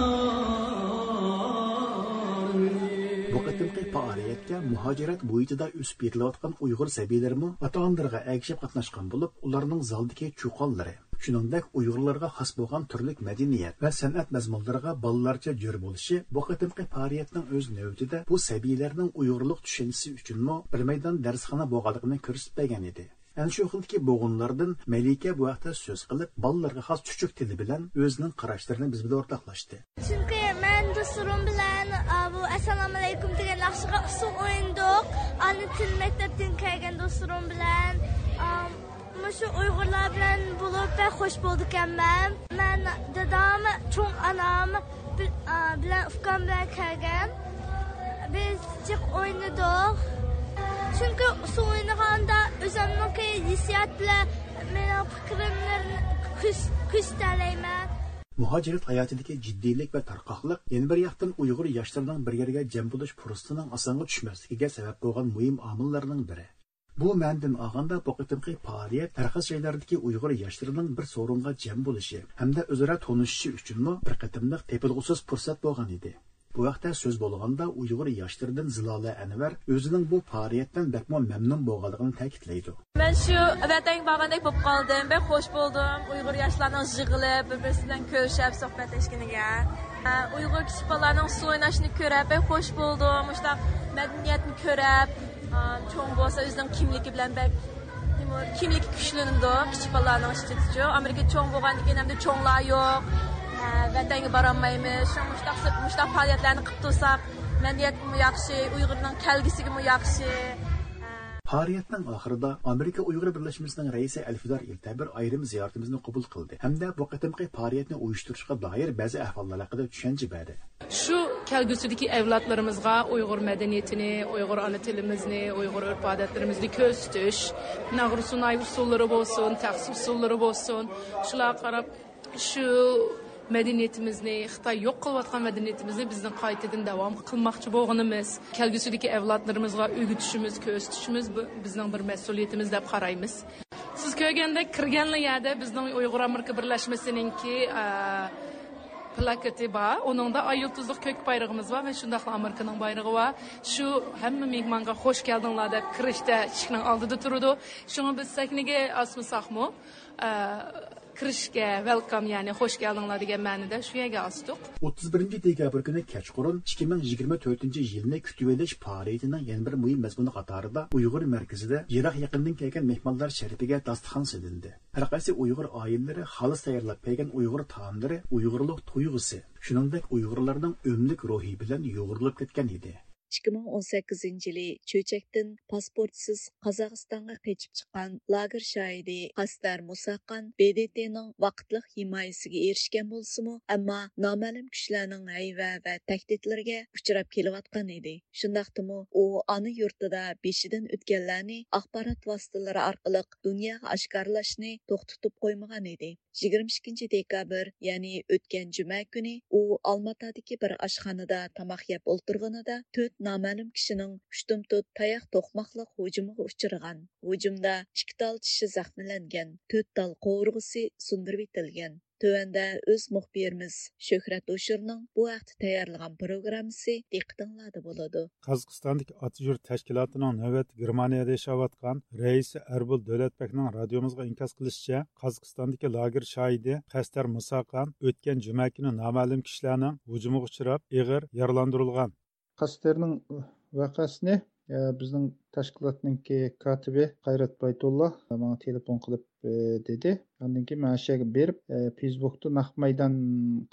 بۇ قېتىمقى پائالىيەتكە مۇھاجىرەت مۇھىتىدا ئۆسۈپ يېتىلىۋاتقان ئۇيغۇر سەبىيلىرىمۇ ئاتا-ئانىلىرىغا ئەگىشىپ قاتناشقان بولۇپ، ئۇلارنىڭ زالدىكى چۇقانلىرى، شۇنىڭدەك ئۇيغۇرلارغا خاس بولغان تۈرلۈك مەدەنىيەت ۋە سەنئەت مەزمۇنلىرىغا بالىلارچە جۆر بولۇشى بۇ قېتىمقى پائالىيەتنىڭ ئۆز نۆۋىتىدە بۇ سەبىيلەرنىڭ ئۇيغۇرلۇق چۈشەنچىسى ئۈچۈنمۇ بىر مەيدان دەرسخانا بولغانلىقىنى كۆرسىتىپ بەرگەن ئىدى. ئەنە شۇ خىلدىكى بوغۇنلاردىن مەلىكە بۇ ھەقتە سۆز قىلىپ، بالىلارغا خاس چۈچۈك تىلى بىلەن ئۆزىنىڭ قاراشلىرىنى بىز بىلەن ئورتاقلاشتى. چۈنكى مەن دوستلىرىم بىلەن، ئا، بۇ ئەسسالامۇئەلەيكۇم دېگەن ناخشىغا ئۇسسۇل ئوينىدۇق. ئانا تىل مەكتەپتىن كەلگەن دوستلىرىم بىلەن، ئا، مۇشۇ ئۇيغۇرلار بىلەن بولۇپ بەك خوش بولدىكەنمەن. مەن دادام، چوڭ ئانام، بىل-، ئا، بىلەن ئۇكام بىلەن كەلگەن. بىز جىق ئوينىدۇق. چۈنكى ئۇسسۇل ئوينىغاندا ئۆزۈمنىڭكى ھېسسىيات بىلەن مېنىڭ پىكرىملىرىنى كۆرس-، كۆرسىتەلەيمەن. مۇھاجىرەت ھاياتىدىكى جىددىيلىك ۋە تارقاقلىق يەنە بىر ياقتىن ئۇيغۇر ياشلىرىنىڭ بىر يەرگە جەم بولۇش پۇرسىتىنىڭ ئاسانغا چۈشمەسلىكىگە سەۋەب بولغان مۇھىم ئامىللارنىڭ بىرى. بۇ مەنىدىن ئالغاندا، بۇ قېتىمقى پائالىيەت ھەر قايسى جايلاردىكى ئۇيغۇر ياشلىرىنىڭ بىر سورۇنغا جەم بولۇشى ھەمدە ئۆزئارا تونۇشۇشى ئۈچۈنمۇ بىر قېتىملىق تېپىلغۇسىز پۇرسەت بولغان ئىدى. بۇ ھەقتە سۆز بولغاندا، ئۇيغۇر ياشلىرىدىن زىلالە ئەنۋەر ئۆزىنىڭ بۇ پائالىيەتتىن بەكمۇ مەمنۇن بولغانلىقىنى تەكىتلەيدۇ. مەن شۇ ۋەتەنگە بارغاندەك بولۇپ قالدىم. بەك خوش بولدۇم ئۇيغۇر ياشلارنىڭ يىغىلىپ، بىر-بىرسى بىلەن كۆرۈشۈپ، سۆھبەتلەشكىنىگە. ئە، ئۇيغۇر كىچىك بالىلارنىڭ ئۇسسۇل ئويناشنى كۆرۈپ، بەك خوش بولدۇم. مۇشۇنداق مەدەنىيەتنى كۆرۈپ، ئە، چوڭ بولسا ئۆزىنىڭ كىملىكى بىلەن بەك، نېمە، كىملىكى كۈچلىنىدۇ كىچىك بالىلارنىڭ ئىچىدىچۇ. ئامېرىكا چوڭ بولغاندىن كېيىن ھەمدە چوڭلار يوق. ئە، ۋەتەنگە بارالمايمىز. شۇڭا مۇشۇنداق، مۇشۇنداق پائالىيەتلەرنى قىلىپ تۇرساق، مەدەنىيەتكىمۇ ياخشى، ئۇيغۇرنىڭ كەلگۈسىگىمۇ ياخشى. پائالىيەتنىڭ ئاخىرىدا ئامېرىكا ئۇيغۇر بىرلەشمىسىنىڭ رەئىسى ئەلفىدار ئىلتەبىر ئايرىم زىيارىتىمىزنى قوبۇل قىلدى ھەمدە بۇ قېتىمقى پائالىيەتنى ئۇيۇشتۇرۇشقا دائىر بەزى ئەھۋاللار ھەققىدە چۈشەنچە بەردى. شۇ كەلگۈسىدىكى ئەۋلادلىرىمىزغا ئۇيغۇر مەدەنىيىتىنى، ئۇيغۇر ئانا تىلىمىزنى، ئۇيغۇر ئۆرپ-ئادەتلىرىمىزنى كۆرسىتىش، ناغرۇسۇناي ئۇسسۇللىرى بولسۇن، تەخسە ئۇسسۇللىرى بولسۇن، شۇلارغا قاراپ شۇ مەدەنىيىتىمىزنى، خىتاي يوق قىلىۋاتقان مەدەنىيىتىمىزنى بىزنىڭ قايتىدىن داۋام قىلماقچى بولغىنىمىز، كەلگۈسىدىكى ئەۋلادلىرىمىزغا ئۆگىتىشىمىز، كۆرسىتىشىمىز بۇ بىزنىڭ بىر مەسئۇلىيىتىمىز دەپ قارايمىز. سىز كۆرگەندەك، كىرگەنلا يەردە بىزنىڭ ئۇيغۇر ئامېرىكا بىرلەشمىسىنىڭكى، ئە، پلاكېتى بار. ئۇنىڭدا ئاي يۇلتۇزلۇق كۆك بايرىقىمىز بار ۋە شۇنداقلا ئامېرىكىنىڭ بايرىقى بار. شۇ ھەممە مېھمانغا خوش كەلدىڭلار دەپ كىرىشتە ئىشىكنىڭ ئالدىدا تۇرىدۇ. شۇڭا بىز سەھنىگە ئاسمىساقمۇ، ئە، كىرىشكە ۋېلكام، يەنى خوش كەلدىڭلار دېگەن مەنىدە شۇ يەرگە ئاستۇق. ئوتتۇز بىرىنچى دېكابىر كۈنى كەچقۇرۇن ئىككى مىڭ يىگىرمە تۆتىنچى يىلنى كۈتۈۋېلىش پائالىيىتىنىڭ يەنە بىر مۇھىم مەزمۇنى قاتارىدا ئۇيغۇر مەركىزىدە يىراق يېقىندىن كەلگەن مېھمانلار شەرىپىگە داستىخان سېلىندى. ھەر قايسى ئۇيغۇر ئائىلىلىرى خالىس تەييارلاپ كەلگەن ئۇيغۇر تائاملىرى ئۇيغۇرلۇق تۇيغۇسى، شۇنىڭدەك ئۇيغۇرلارنىڭ ئۆملۈك روھى بىلەن يۇغۇرۇلۇپ كەتكەن ئىدى. ئىككى مىڭ ئون سەككىزىنچى يىلى چۆچەكتىن پاسپورتسىز قازاقىستانغا قېچىپ چىققان لاگېر شاھىدى قەستەر مۇساخان ب د ت نىڭ ۋاقىتلىق ھىمايىسىگە ئېرىشكەن بولسىمۇ، ئەمما نامەلۇم كۈچلەرنىڭ ھەيۋە ۋە تەھدىتلىرىگە ئۇچراپ كېلىۋاتقان ئىدى. شۇنداقتىمۇ ئۇ ئانا يۇرتىدا بېشىدىن ئۆتكەنلەرنى ئاخبارات ۋاسىتىلىرى ئارقىلىق دۇنياغا ئاشكارىلاشنى توختىتىپ قويمىغان ئىدى. يىگىرمە ئىككىنچى دېكابىر، يەنى ئۆتكەن جۈمە كۈنى ئۇ ئالماتادىكى بىر ئاشخانىدا تاماق يەپ ئولتۇرغىنىدا تۆت نامەلۇم كىشىنىڭ ئۇشتۇمتۇت تاياق توقماقلىق ھۇجۇمىغا ئۇچرىغان. ھۇجۇمدا ئىككى تال چىشى زەخىملەنگەن، تۆت تال قورۇغۇسى سۇندۇرۇۋېتىلگەن. تۆۋەندە ئۆز مۇخبىرىمىز شۆھرەت ھوشۇرنىڭ بۇ ھەقتە تەييارلىغان پروگراممىسى دىققىتىڭلاردا بولىدۇ. قازاقىستاندىكى ئاتا يۇرت تەشكىلاتىنىڭ نۆۋەتتە گېرمانىيەدە ياشاۋاتقان رەئىسى ئەربۇل دۆلەتبەكنىڭ رادىيومىزغا ئىنكاس قىلىشىچە، قازاقىستاندىكى لاگېر شاھىدى قەستەر مۇساقان ئۆتكەن جۈمە كۈنى نامەلۇم كىشىلەرنىڭ ھۇجۇمىغا ئۇچراپ، ئېغىر يارىلاندۇرۇلغان. قەستەرنىڭ ۋەقەسىنى ئە، بىزنىڭ تەشكىلاتنىڭكى كاتىپى قايرات بايتۇللا ماڭا تېلېفون قىلىپ، ئە، دېدى. ئاندىن كېيىن مەن ئاشۇ يەرگە بېرىپ، ئە، فېيسبۇكتا نەق مەيدان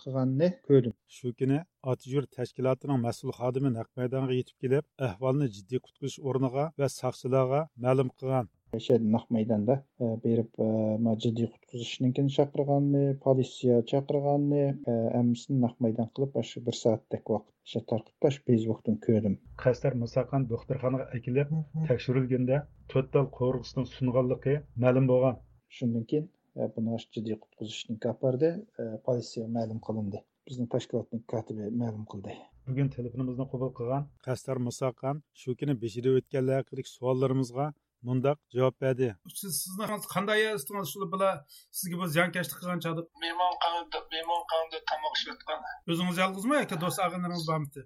قىلغاننى كۆردۈم. شۇ كۈنى ئاتىيۇرت تەشكىلاتىنىڭ مەسئۇل خادىمى نەق مەيدانغا يېتىپ كېلىپ، ئەھۋالنى جىددىي قۇتقۇزۇش ئورنىغا ۋە ساقچىلارغا مەلۇم قىلغان. ئاشۇ يەردە نەق مەيداندا، ئە، بېرىپ، ئە، ما جىددىي قۇتقۇزۇشنىڭكىنى چاقىرغاننى، پولىتسىيە چاقىرغاننى، ئە، ھەممىسىنى نەق مەيدان قىلىپ، ئاشۇ بىر سائەتتەك ۋاقىت ئاشۇ تارقىتىپ، ئاشۇ فېيسبۇكتىن كۆردۈم. قەستەر مۇساخان دوختۇرخانىغا ئەكېلىپ تەكشۈرۈلگەندە، تۆت تال قوۋۇرغىسىنىڭ سۇنغانلىقى مەلۇم بولغان. شۇندىن كېيىن، ئە، بۇنى ئاشۇ جىددىي قۇتقۇزۇشنىڭكى ئاپاردى، ئە، پولىتسىيەگە مەلۇم قىلىندى. بىزنىڭ تەشكىلاتنىڭ كاتىپى مەلۇم قىلدى. بۈگۈن تېلېفونىمىزنى قوبۇل قىلغان قەستەر مۇساخان شۇ كۈنى بېشىدا ئۆتكەنلەر ھەققىدىكى سوئاللىرىمىزغا مۇنداق جاۋاب بەردى. سىز، سىزنىڭ قانداق يەردە تۇتتىڭىز شۇ بىلەن سىزگە بۇ زىيانكەشلىك قىلغان چاغدا؟ مېھمانخانىدا، مېھمانخانىدا تاماق ئىشلەتكەن. ئۆزىڭىز يالغۇزمۇ ياكى دوست ئاغىنىلىرىڭىز بارمىدى؟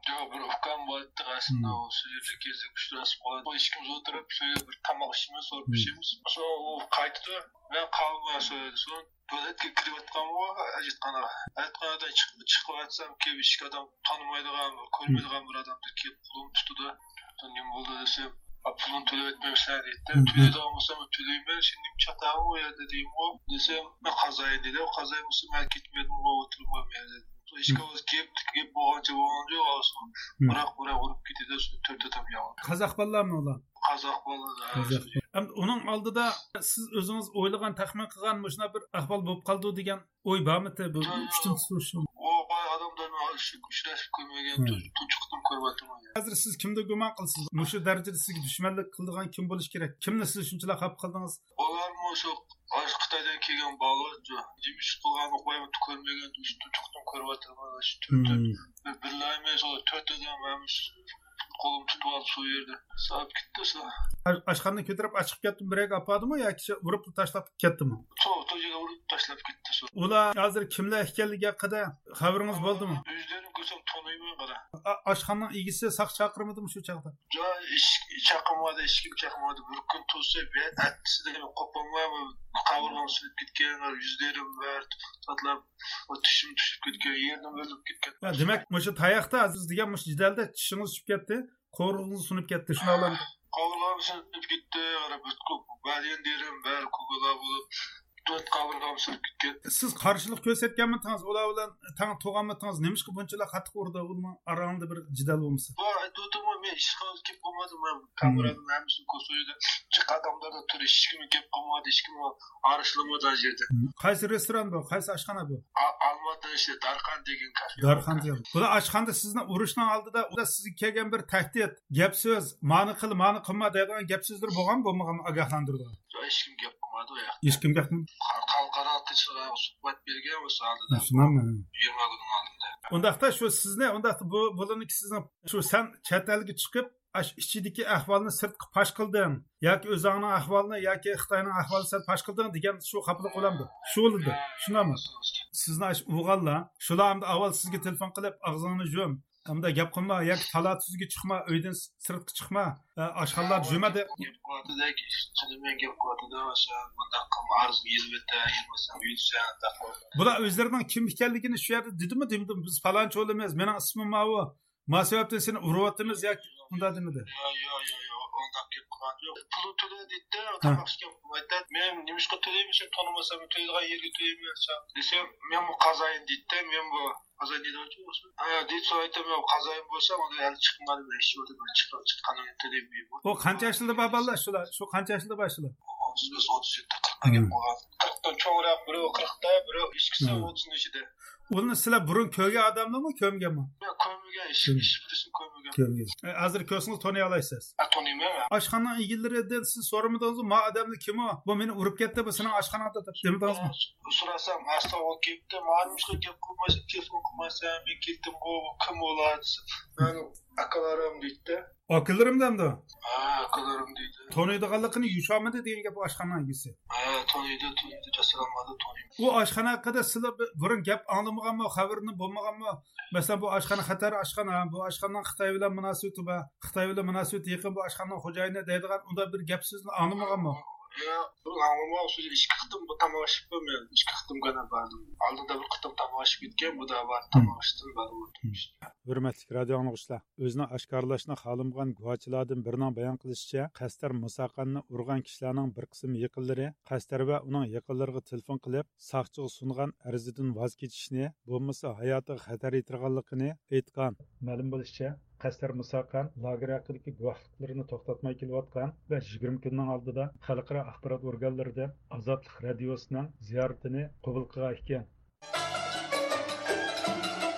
ياق، بىر ئۇكام بار ئىدى، ئەسلىدە ئۇ شۇ يەردە كېزىپ ئۇچراشىپ قالدۇق. ئىككىمىز ئولتۇرۇپ شۇ يەردە بىر تاماق ئىچىمىز، سوراپ ئىچىمىز. سوڭ ئۇ قايتىدۇ. مەن قالدىم شۇ يەردە. سوڭ تۆلەتكە كىرىۋاتقانغۇ، ھاجەتخانىغا. ھاجەتخانىدىن چىق-، چىقىۋاتسام، كېلىپ ئىشىك ئادەم تونۇمايدىغان، كۆرمەيدىغان بىر ئادەمدەك كېلىپ قولۇمنى تۇتىدۇ. نېمە بولدى دېسەم، پۇلۇڭنى تۆلەپ ئەتمەمسەن دەيدىدە. تۆلەيدىغان بولسام تۆلەيمەن، سەن نېمە چاتاقسەن ئۇ يەردە دېدىمغۇ. دېسەم، مەن قازايىن دېدى. قازايىن بولسا مەن كەتمىدىمغۇ، ئولتۇرۇپ مەن يەردە. ھېچكىم گەپ، گەپ بولغانچە بولغان يوق، ئاۋۇ. بىراق، بىراق ئۇرۇپ كېتىدۇ، شۇ تۆت ئادەم ياۋا. قازاق بالىلارمۇ ئۇلار؟ قازاق بالىلار، ھە. قازاق. ئەمدى ئۇنىڭ ئالدىدا سىز ئۆزىڭىز ئويلىغان، تەخمىن قىلغان مۇشۇنداق بىر ئەھۋال بولۇپ قالىدۇ دېگەن ئوي بارمىدى بۇ ئۈچتىن سورىشىم؟ ئۇ ئادەملەرنى ئۇچرىشىپ كۆرمىگەن، تۇنجى قېتىم كۆرۈۋاتىمەن. ھازىر سىز كىمدە گۇمان قىلىسىز؟ مۇشۇ دەرىجىدە سىزگە دۈشمەنلىك قىلىدىغان كىم بولۇشى كېرەك؟ كىمنى سىز شۇنچىلىك خاپا قىلدىڭىز؟ ئۇلارمۇ شۇ، ئاشۇ خىتايدىن كەلگەن بالىلار، نېمە ئىش قىلغانلىقى كۆرمىگەن، تۇنجى قېتىم كۆرۈۋاتىمەن. شۇ تۆت، تۆت، بىر، بىرلەيمەن، شۇ تۆت ئادەم ھەممىسى قولۇم تۇتۇپ ئالدى شۇ يەردە. ساپ كەتتى شۇ. ئاش-، ئاشخانىنى كۆتۈرۈپ ئاچىقىپ كەتتىمۇ، بىر يەرگە ئاپاردىمۇ ياكى شۇ ئۇرۇپ تاشلاپ كەتتىمۇ؟ شۇ، شۇ يەرگە ئۇرۇپ تاشلاپ كەتتى شۇ. ئۇلار ھازىر كىملەر ئىكەنلىكى ھەققىدە خەۋىرىڭىز بولدىمۇ؟ ئۆزلىرىنى كۆرسەم تونۇيمەن قارا. ئا-، ئاشخانىنىڭ ئىگىسى ساقچى چاقىرمىدىمۇ شۇ چاغدا؟ ياق، ھېچ، ھېچ چاقىرمىدى، ھېچكىم چاقىرمىدى. بىر كۈن تۇرسا، بىر ئەتىسىدە قوپالماي قاۋۇرغام سىنىپ كەتكەن، يۈزلىرىم ۋە زاتلار، تىشىم چۈشۈپ كەتكەن، يېرىم ئۆلۈپ كەتكەن. يا، دېمەك، مۇشۇ تاياقتا سىز دېگەن مۇشۇ جېدەلدە چىشىڭىز چۈشۈپ كەتتى، قوۋۇرغىڭىز سۇنۇپ كەتتى، شۇنىڭ بىلەن؟ قاۋۇرغام سۇنۇپ كەتتى، بەدەن يېرىم بەرى كوكۇلا بولۇپ، تۆت قاۋۇرغام سۇنۇپ كەتكەن. سىز قارشىلىق كۆرسەتكەنمىدىڭىز؟ ئۇلار بىلەن تەڭ تۇرغانمىدىڭىز؟ نېمىشقا بۇنچىلا قاتتىق ئۇردى؟ ئۇنىڭ ئاراڭدا بىر جېدەل بولمىسا. بۇ ئېيتىۋاتىمەن، مەن ھېچقانداق گەپ قىلمىدىم. مەن كامېرانىڭ ھەممىسىنى كۆرسىتىدۇ. جىق ئادەملەردە تۇرۇپ، ھېچكىمگە گەپ قىلمىدى، ھېچكىمگە ئارىلاشمىدى ئاشۇ يەردە. قايسى رېستوران بۇ؟ قايسى ئاشخانا بۇ؟ ئا-، ئالماتىدا ئىشلەيدۇ، دارخان دېگەن كافې. دارخان دېگەن. بۇلار ئاشخانىدا سىزنى ئۇرۇشنىڭ ئالدىدا، ئۇدا سىزگە كەلگەن بىر تەھدىت، گەپ سۆز، مانى قىل، مانى قىلما دەيدىغان گەپ سۆزلىرى بولغانمۇ، بولمىغانمۇ، ئاگاھلاندۇرىدىغان؟ ھېچكىم گەپ قىلمىدى ئۇ ياقتا. ھېچكىم گەپ قىلمىدى. خەلقئارا تىلچىلارغا سۇھبەت بەرگەن ئۇ ساھەدە. شۇنداقمۇ؟ يىگىرمە كۈننىڭ ئالدىدا. ئۇنداقتا شۇ سىزنى، ئۇنداقتا بۇ، بۇلارنىڭكى سىزنىڭ شۇ سەن چەت ئەلگە چىقىپ، ئاش ئىچىدىكى ئەھۋالنى سىرتقا پاش قىلدىڭ ياكى ئۆزۈڭنىڭ ئەھۋالىنى ياكى خىتاينىڭ ئەھۋالىنى سەن پاش قىلدىڭ دېگەن شۇ خاپىلىق بولامدۇ؟ شۇ بولىدۇ. شۇنداقمۇ؟ سىزنى ئاش ئۇرغانلار، شۇلار ئەمدى ئاۋۋال سىزگە تېلېفون قىلىپ، ئاغزىڭنى يۇم، ئەمدى گەپ قىلما ياكى تالا-تۈزگە چىقما، ئۆيدىن سىرتقا چىقما، ئە، ئاشخانىلاردا يۈرمە دەپ. گەپ قىلىۋاتىدۇ، تىلى بىلەن گەپ قىلىۋاتىدۇ، مۇنداق قىلما، ئارزۇڭنى يېزىپ ئۆتە، يازمىسام يۈرسەڭ، ئۇنداق قىلما. بۇلار ئۆزلىرىنىڭ كىم ئىكەنلىكىنى شۇ يەردە دېدىمۇ، دېمىدىم؟ بىز پالانچى ئولىمىز، مېنىڭ ئىسمىم ماۋۇ، ما سەۋەبتىن سېنى ئۇرۇۋاتىمىز ياكى ئۇنداق دېمىدى؟ ياق، ياق، ياق، ياق، ئۇنداق گەپ قىلغان يوق. پۇلنى تۆلە دېدى، ھە. تاماق ئىچكەن قىلمايتتى. مەن نېمىشقا تۆلەيمەن، سەن تونۇمىسام، تۆلەيدىغان يەرگە تۆلەيمەن دېسەم، مەنمۇ قازايىن دېدى، مەنمۇ قازايىن دېدى، ھە، دېدى، سورايتتىم، مەن قازايىن بولسام، ئۇنى ھەلى چىقمىغان، مەن ئىششى بولدۇم، مەن چىققان، چىققان، تۆلەيمەن. ئۇ قانچە ياشلىدا بار بالىلار شۇلار؟ شۇ قانچە ياشلىدا بار شۇلار؟ ئوتتۇز بەش، ئوتتۇز يەتتە، قىرىققا گەپ قىلغان. قىرىقتىن چوڭراق، بىرى قىرىقتا، بىرى ئىككىسى ئوتتۇزنىڭ ئىچىدە. ئۇنى سىلەر بۇرۇن كۆرگەن ئادەملەرمۇ، كۆرمىگەنمۇ؟ ياق، كۆرمىگەن، ھېچ، ھېچ بىرسىنى كۆرمىگەن. كۆرمىگەن. ئە، ھازىر كۆرسىڭىز تونۇيالايسىز. ھە، تونۇيمەن مەن. ئاشخانىنىڭ ئىگىلىرىدىن سىز سورىمىدىڭىزمۇ، ما ئادەمنى كىم ئۇ؟ بۇ مېنى ئۇرۇپ كەتتى، بۇ سېنىڭ ئاشخاناڭدا دەپ دېمىدىڭىزمۇ؟ سوراسام، ئاستا ئۇ كەپتۇ، ماڭا نېمىشقا گەپ قىلمايسەن، تېلېفون قىلمايسەن، مەن كەتتىمغۇ، كىم ئۇلار دېسە، مەن ئاكىلىرىم دەيتتى. ئاكىلىرىم دەمدۇ؟ ھە، ئاكىلىرىم دېدى. تونۇيدىغانلىقىنى يوشۇرمىدى دېگەن گەپ ئاشخانا ئىگىسى. ھە، تونۇيدۇ، تونۇيدۇ، جاسارانمادا تونۇيدۇ. ئۇ ئاشخانا ھەققىدە سىلەر بۇ-، بۇرۇن گەپ ئاڭلىمىغانمۇ، خەۋىرىنى بولمىغانمۇ؟ مەسىلەن، بۇ ئاشخانا خەتەر ئاشخانا، بۇ ئاشخانىنىڭ خىتاي بىلەن مۇناسىۋىتى بار، خىتاي بىلەن مۇناسىۋىتى يېقىن، بۇ ئاشخانىنىڭ خوجايىنى دەيدىغان ئۇنداق بىر گەپ سۆزنى ئاڭلىمىغانمۇ؟ ياق، بۇرۇن ئاڭلىمىغان، شۇ ئىككى قېتىم بۇ تاماق ئىچىپمەن، ئىككى قېتىم گەنە باردىم. ئالدىدا بىر قېتىم تاماق ئىچىپ كەتكەن، بۇ دا بار، تاماق ئىچتىم، بارىۋاتىمەن. ھۆرمەتلىك رادىئو ئاڭلىغۇچىلار، ئۆزىنى ئاشكارىلاشنى خالىمىغان گۇۋاچىلادىن بىرىنىڭ بايان قىلىشىچە، قەستەر مۇساقاننى ئۇرغان كىشىلەرنىڭ بىر قىسىم يېقىنلىرى قەستەر ۋە ئۇنىڭ يېقىنلىرىغا تېلېفون قىلىپ، ساقچىغا سۇنغان ئەرزىدىن ۋاز كېچىشنى، بولمىسا ھاياتىغا خەتەر يېتىرغانلىقىنى ئېيتقان. مەلۇم بولۇشىچە، قەستەر مۇساقان لاگېر ھەققىدىكى گۇۋاھلىقلىرىنى توختاتماي كېلىۋاتقان ۋە يىگىرمە كۈننىڭ ئالدىدا خەلقئارا ئاخبارات ئورگانلىرىدىن ئازادلىق رادىيوسىنىڭ زىيارىتىنى قوبۇل قىلغان ئىكەن.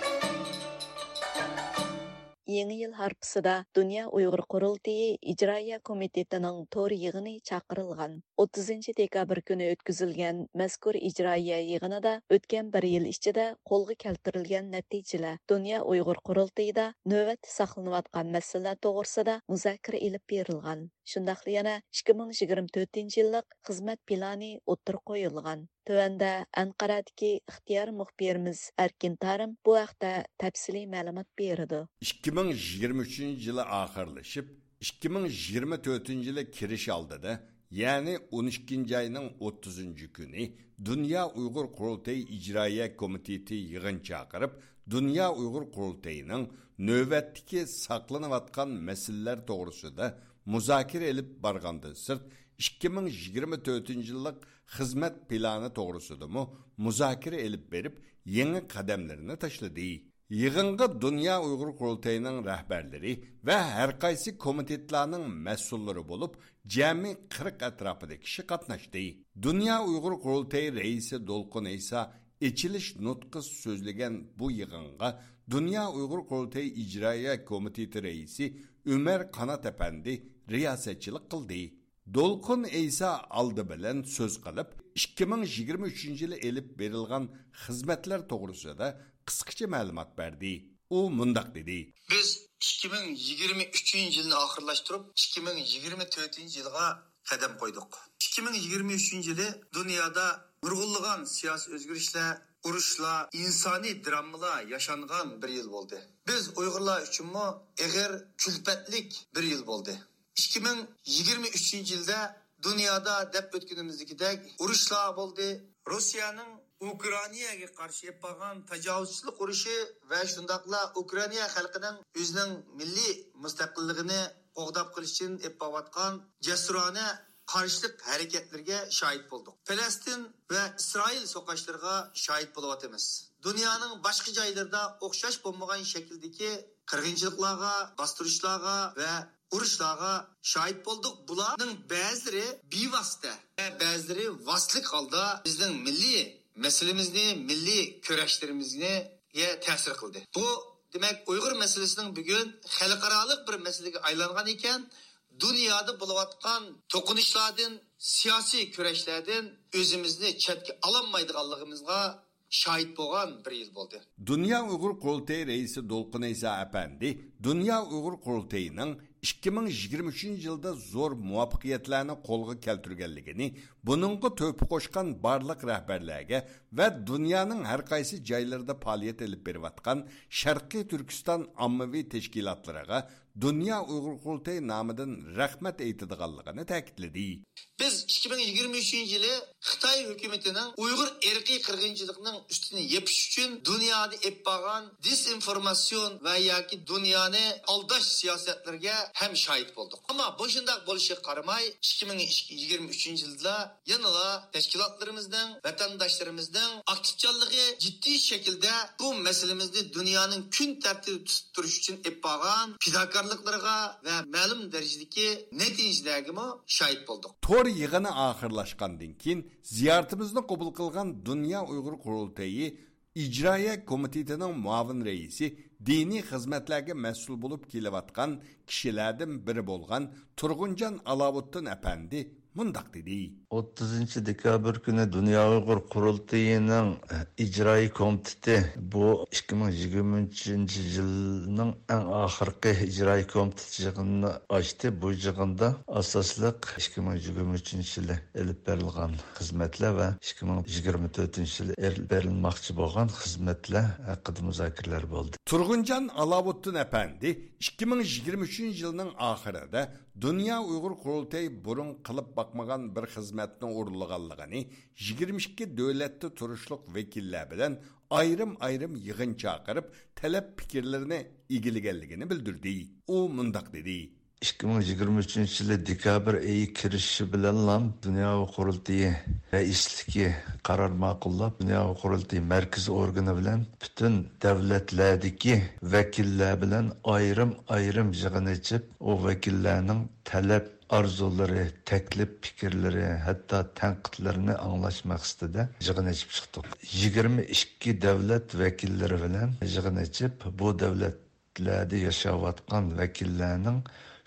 يېڭى يىل ھارپىسىدا دۇنيا ئۇيغۇر قۇرۇلتىيى ئىجرائىيە كومىتېتىنىڭ تور يىغىنى چاقىرىلغان. ئوتتۇزىنچى دېكابىر كۈنى ئۆتكۈزۈلگەن مەزكۇر ئىجرائىيە يىغىنىدا ئۆتكەن بىر يىل ئىچىدە قولغا كەلتۈرۈلگەن نەتىجىلەر، دۇنيا ئۇيغۇر قۇرۇلتىيىدا نۆۋەتتە ساقلىنىۋاتقان مەسىلىلەر توغرىسىدا مۇزاكىرە ئېلىپ بېرىلغان. شۇنداقلا يەنە ئىككى مىڭ يىگىرمە تۆتىنچى يىللىق خىزمەت پىلانى ئوتتۇرىغا قويۇلغان. تۆۋەندە ئەنقەرەدىكى ئىختىيارىي مۇخبىرىمىز ئەركىن تارىم بۇ ھەقتە تەپسىلىي مەلۇمات بېرىدۇ. ئىككى مىڭ يىگىرمە ئۈچىنچى يىلى ئاخىرلىشىپ، ئىككى مىڭ يىگىرمە تۆتىنچى يىلى كىرىش ئالدىدا، يەنى ئون ئىككىنچى ئاينىڭ ئوتتۇزىنچى كۈنى دۇنيا ئۇيغۇر قۇرۇلتىيى ئىجرائىيە كومىتېتى يىغىن چاقىرىپ، دۇنيا ئۇيغۇر قۇرۇلتىيىنىڭ نۆۋەتتىكى ساقلىنىۋاتقان مەسىلىلەر توغرىسىدا مۇزاكىرە ئېلىپ بارغاندىن سىرت، ئىككى مىڭ يىگىرمە تۆتىنچى يىللىق خىزمەت پىلانى توغرىسىدىمۇ مۇزاكىرە ئېلىپ بېرىپ، يېڭى قەدەملىرىنى تاشلىدى. يىغىنغا دۇنيا ئۇيغۇر قۇرۇلتىيىنىڭ رەھبەرلىرى ۋە ھەر قايسى كومىتېتلارنىڭ مەسئۇللىرى بولۇپ، جەمئىي قىرىق ئەتراپىدا كىشى قاتناشتى. دۇنيا ئۇيغۇر قۇرۇلتىيى رەئىسى دولقۇن ئەيسا ئېچىلىش نۇتقى سۆزلىگەن بۇ يىغىنغا دۇنيا ئۇيغۇر قۇرۇلتىيى ئىجرائىيە كومىتېتى رەئىسى ئۆمەر قانات ئەپەندى رىياسەتچىلىك قىلدى. دولقۇن ئەيسا ئالدى بىلەن سۆز قىلىپ، ئىككى مىڭ يىگىرمە ئۈچىنچى يىلى ئېلىپ بېرىلغان خىزمەتلەر توغرىسىدا قىسقىچە مەلۇمات بەردى. ئۇ مۇنداق دېدى. بىز ئىككى مىڭ يىگىرمە ئۈچىنچى يىلنى ئاخىرلاشتۇرۇپ، ئىككى مىڭ يىگىرمە تۆتىنچى يىلغا قەدەم قويدۇق. ئىككى مىڭ يىگىرمە ئۈچىنچى يىلى دۇنيادا نۇرغۇنلىغان سىياسىي ئۆزگىرىشلەر، ئۇرۇشلار، ئىنسانىي دراممىلار ياشانغان بىر يىل بولدى. بىز ئۇيغۇرلار ئۈچۈنمۇ ئېغىر كۈلپەتلىك بىر يىل بولدى. ئىككى مىڭ يىگىرمە ئۈچىنچى يىلدا دۇنيادا دەپ ئۆتكىنىمىزدىكىدەك ئۇرۇشلار بولدى. روسىيەنىڭ ئۇكرائىناگە قارشى ئېلىپ بارغان تاجاۋۇزچىلىق ئۇرۇشى ۋە شۇنداقلا ئۇكرائىنا خەلقىنىڭ ئۆزىنىڭ مىللىي مۇستەقىللىقىنى قوغداپ قېلىش ئۈچۈن ئېلىپ بارىۋاتقان جەسۇرانە قارشىلىق ھەرىكەتلىرىگە شاھىت بولدۇق. پەلەستىن ۋە ئىسرائىل سوقۇشلىرىغا شاھىت بولۇۋاتىمىز. دۇنيانىڭ باشقا جايلىرىدا ئوخشاش بولمىغان شەكىلدىكى قىرغىنچىلىقلارغا، باستۇرۇشلارغا ۋە ئۇرۇشلارغا شاھىت بولدۇق. بۇلارنىڭ بەزىلىرى بىۋاسىتە ۋە بەزىلىرى ۋاسىتىلىك ھالدا بىزنىڭ مىللىي مەسىلىمىزنى، مىللىي كۈرەشلىرىمىزگە تەسىر قىلدى. بۇ، دېمەك، ئۇيغۇر مەسىلىسىنىڭ بۈگۈن خەلقئارالىق بىر مەسىلىگە ئايلانغان ئىكەن، دۇنيادا بولۇۋاتقان توقۇنۇشلاردىن، سىياسىي كۈرەشلەردىن ئۆزىمىزنى چەتكە ئالالمايدىغانلىقىمىزغا شاھىت بولغان بىر يىل بولدى. دۇنيا ئۇيغۇر قۇرۇلتىيى رەئىسى دولقۇن ئەيسا ئەپەندى دۇنيا ئۇيغۇر قۇرۇلتىيىنىڭ ئىككى مىڭ يىگىرمە ئۈچىنچى يىلدا زور مۇۋەپپەقىيەتلەرنى قولغا كەلتۈرگەنلىكىنى، بۇنىڭغا تۆھپە قوشقان بارلىق رەھبەرلەرگە ۋە دۇنيانىڭ ھەر قايسى جايلىرىدا پائالىيەت ئېلىپ بېرىۋاتقان شەرقىي تۈركىستان ئاممىۋى تەشكىلاتلىرىغا دۇنيا ئۇيغۇر قۇرۇلتىيى نامىدىن رەھمەت ئېيتىدىغانلىقىنى تەكىتلىدى. بىز ئىككى مىڭ يىگىرمە ئۈچىنچى يىلى خىتاي ھۆكۈمىتىنىڭ ئۇيغۇر ئىرقىي قىرغىنچىلىقىنىڭ ئۈستىنى يېپىش ئۈچۈن دۇنيادا ئېلىپ بارغان دېزىنفورماتسىيون ۋە ياكى دۇنيانى ئالداش سىياسەتلىرىگە ھەم شاھىت بولدۇق. ئەمما بۇ شۇنداق بولۇشىغا قارىماي، ئىككى مىڭ يىگىرمە ئۈچىنچى يىلدا يەنىلا تەشكىلاتلىرىمىزنىڭ، ۋەتەنداشلىرىمىزنىڭ ئاكتىپچانلىقى جىددىي شەكىلدە بۇ مەسىلىمىزنى دۇنيانىڭ كۈن تەرتىپىدە تۇتۇپ تۇرۇش ئۈچۈن ئېلىپ بارغان پىداكارلىقلىرىغا ۋە مەلۇم دەرىجىدىكى نەتىجىلەرگىمۇ شاھىت بولدۇق. تور يىغىنى ئاخىرلاشقاندىن كېيىن، زىيارىتىمىزنى قوبۇل قىلغان دۇنيا ئۇيغۇر قۇرۇلتىيى ئىجرائىيە كومىتېتىنىڭ مۇئاۋىن رەئىسى، دىنىي خىزمەتلەرگە مەسئۇل بولۇپ كېلىۋاتقان كىشىلەردىن بىرى بولغان تۇرغۇنجان ئالاۋۇتتىن ئەپەندى مۇنداق دېدى. ئوتتۇزىنچى دېكابىر كۈنى دۇنيا ئۇيغۇر قۇرۇلتىيىنىڭ ئىجرائىي كومىتېتى بۇ ئىككى مىڭ يىگىرمە ئۈچىنچى يىلنىڭ ئەڭ ئاخىرقى ئىجرائىي كومىتېت يىغىنىنى ئاچتى. بۇ يىغىندا ئاساسلىق ئىككى مىڭ يىگىرمە ئۈچىنچى يىلى ئېلىپ بېرىلغان خىزمەتلەر ۋە ئىككى مىڭ يىگىرمە تۆتىنچى يىلى ئېلىپ بېرىلماقچى بولغان خىزمەتلەر ھەققىدە مۇزاكىرىلەر بولدى. تۇرغۇنجان ئالاۋۇتتىن ئەپەندى ئىككى مىڭ يىگىرمە ئۈچىنچى يىلنىڭ ئاخىرىدا دۇنيا ئۇيغۇر قۇرۇلتىيى بۇرۇن قىلىپ باقمىغان بىر خىزمەتنى ئورۇنلىغانلىقىنى، يىگىرمە ئىككى دۆلەتتە تۇرۇشلۇق ۋەكىللەر بىلەن ئايرىم-ئايرىم يىغىن چاقىرىپ، تەلەپ پىكىرلىرىنى ئىگىلىگەنلىكىنى بىلدۈردى. ئۇ مۇنداق دېدى. ئىككى مىڭ يىگىرمە ئۈچىنچى يىلى دېكابىر ئېيى كىرىشىشى بىلەنلا دۇنيا ئۇيغۇر قۇرۇلتىيى رەئىسلىكى قارار ماقۇللاپ، دۇنيا ئۇيغۇر قۇرۇلتىيى مەركىزىي ئورگىنى بىلەن پۈتۈن دۆلەتلەردىكى ۋەكىللەر بىلەن ئايرىم-ئايرىم يىغىن ئېچىپ، ئۇ ۋەكىللەرنىڭ تەلەپ ئارزۇلىرى، تەكلىپ پىكىرلىرى، ھەتتا تەنقىدلىرىنى ئاڭلاش مەقسىتىدە يىغىن ئېچىپ چىقتۇق. يىگىرمە ئىككى دۆلەت ۋەكىللىرى بىلەن يىغىن ئېچىپ، بۇ دۆلەتلەردە ياشاۋاتقان ۋەكىللەرنىڭ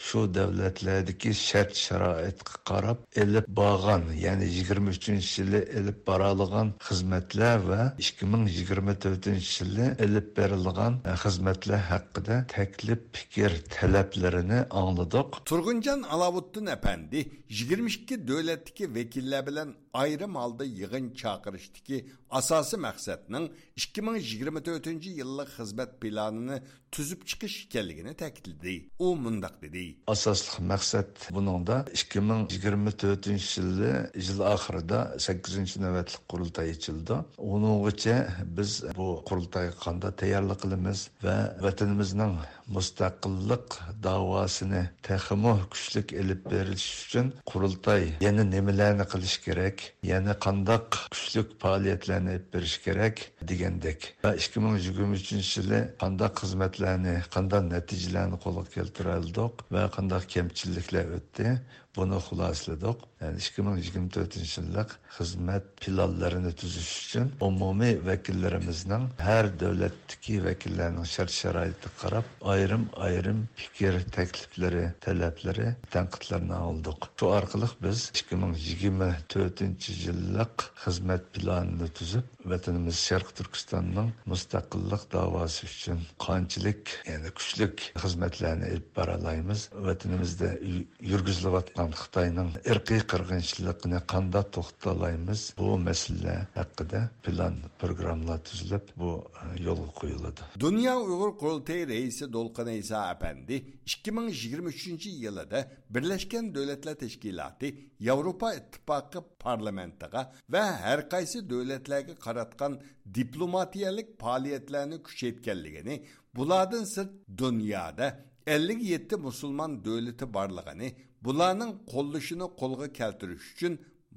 شۇ دۆلەتلەردىكى شەرت-شارائىتقا قاراپ ئېلىپ بارغان، يەنى يىگىرمە ئۈچىنچى يىلى ئېلىپ بارالىغان خىزمەتلەر ۋە ئىككى مىڭ يىگىرمە تۆتىنچى يىلى ئېلىپ بېرىلغان خىزمەتلەر ھەققىدە تەكلىپ پىكىر، تەلەپلىرىنى ئاڭلىدۇق. تۇرغۇنجان ئالاۋۇتتىن ئەپەندى يىگىرمە ئىككى دۆلەتتىكى ۋەكىللەر بىلەن ئايرىم ھالدا يىغىن چاقىرىشتىكى ئاساسىي مەقسەتنىڭ ئىككى مىڭ يىگىرمە تۆتىنچى يىللىق خىزمەت پىلانىنى تۈزۈپ چىقىش ئىكەنلىكىنى تەكىتلىدى. ئۇ مۇنداق دېدى. ئاساسلىق مەقسەت بۇنىڭدا ئىككى مىڭ يىگىرمە تۆتىنچى يىلى يىل ئاخىرىدا سەككىزىنچى نۆۋەتلىك قۇرۇلتاي ئېچىلىدۇ. ئۇنىڭغىچە بىز بۇ قۇرۇلتايغا قانداق تەييارلىق قىلىمىز ۋە ۋەتىنىمىزنىڭ مۇستەقىللىق داۋاسىنى تېخىمۇ كۈچلۈك ئېلىپ بېرىش ئۈچۈن قۇرۇلتاي يەنە نېمىلەرنى قىلىش كېرەك، يەنە قانداق كۈچلۈك پائالىيەتلەرنى ئېلىپ بېرىش كېرەك دېگەندەك. ۋە ئىككى مىڭ يىگىرمە ئۈچىنچى يىلى قانداق خىزمەتلەرنى، قانداق نەتىجىلەرنى قولغا كەلتۈرەلىدۇق ۋە قانداق كەمچىلىكلەر ئۆتتى، بۇنى خۇلاسىلىدۇق. يەنى ئىككى مىڭ يىگىرمە تۆتىنچى يىللىق خىزمەت پىلانلىرىنى تۈزۈش ئۈچۈن ئومۇمىي ۋەكىللىرىمىزنىڭ ھەر دۆلەتتىكى ۋەكىللەرنىڭ شەرت-شارائىتىغا قاراپ ئايرىم-ئايرىم پىكىر، تەكلىپلىرى، تەلەپلىرى، تەنقىدلىرىنى ئاڭلىدۇق. شۇ ئارقىلىق بىز ئىككى مىڭ يىگىرمە تۆتىنچى يىللىق خىزمەت پىلانىنى تۈزۈپ، ۋەتىنىمىز شەرقىي تۈركىستاننىڭ مۇستەقىللىق داۋاسى ئۈچۈن قانچىلىك، يەنى كۈچلۈك خىزمەتلەرنى ئېلىپ بارالايمىز، ۋەتىنىمىزدە يۈ-، يۈرگۈزۈلۈۋاتقان خىتاينىڭ ئىرقىي قىرغىنچىلىقىنى قانداق توختىتالايمىز، بۇ مەسىلىلەر ھەققىدە پىلان، پروگراممىلار تۈزۈلۈپ، بۇ، ئە، يولغا قويۇلىدۇ. دۇنيا ئۇيغۇر قۇرۇلتىيى رەئىسى دولقۇن ئەيسا ئەپەندى ئىككى مىڭ يىگىرمە ئۈچىنچى يىلىدا بىرلەشكەن دۆلەتلەر تەشكىلاتى، ياۋروپا ئىتتىپاقى پارلامېنتىغا ۋە ھەر قايسى دۆلەتلەرگە قاراتقان دىپلوماتىيەلىك پائالىيەتلەرنى كۈچەيتكەنلىكىنى، بۇلاردىن سىرت دۇنيادا ئەللىك يەتتە مۇسۇلمان دۆلىتى بارلىقىنى، بۇلارنىڭ قوللىشىنى قولغا كەلتۈرۈش ئۈچۈن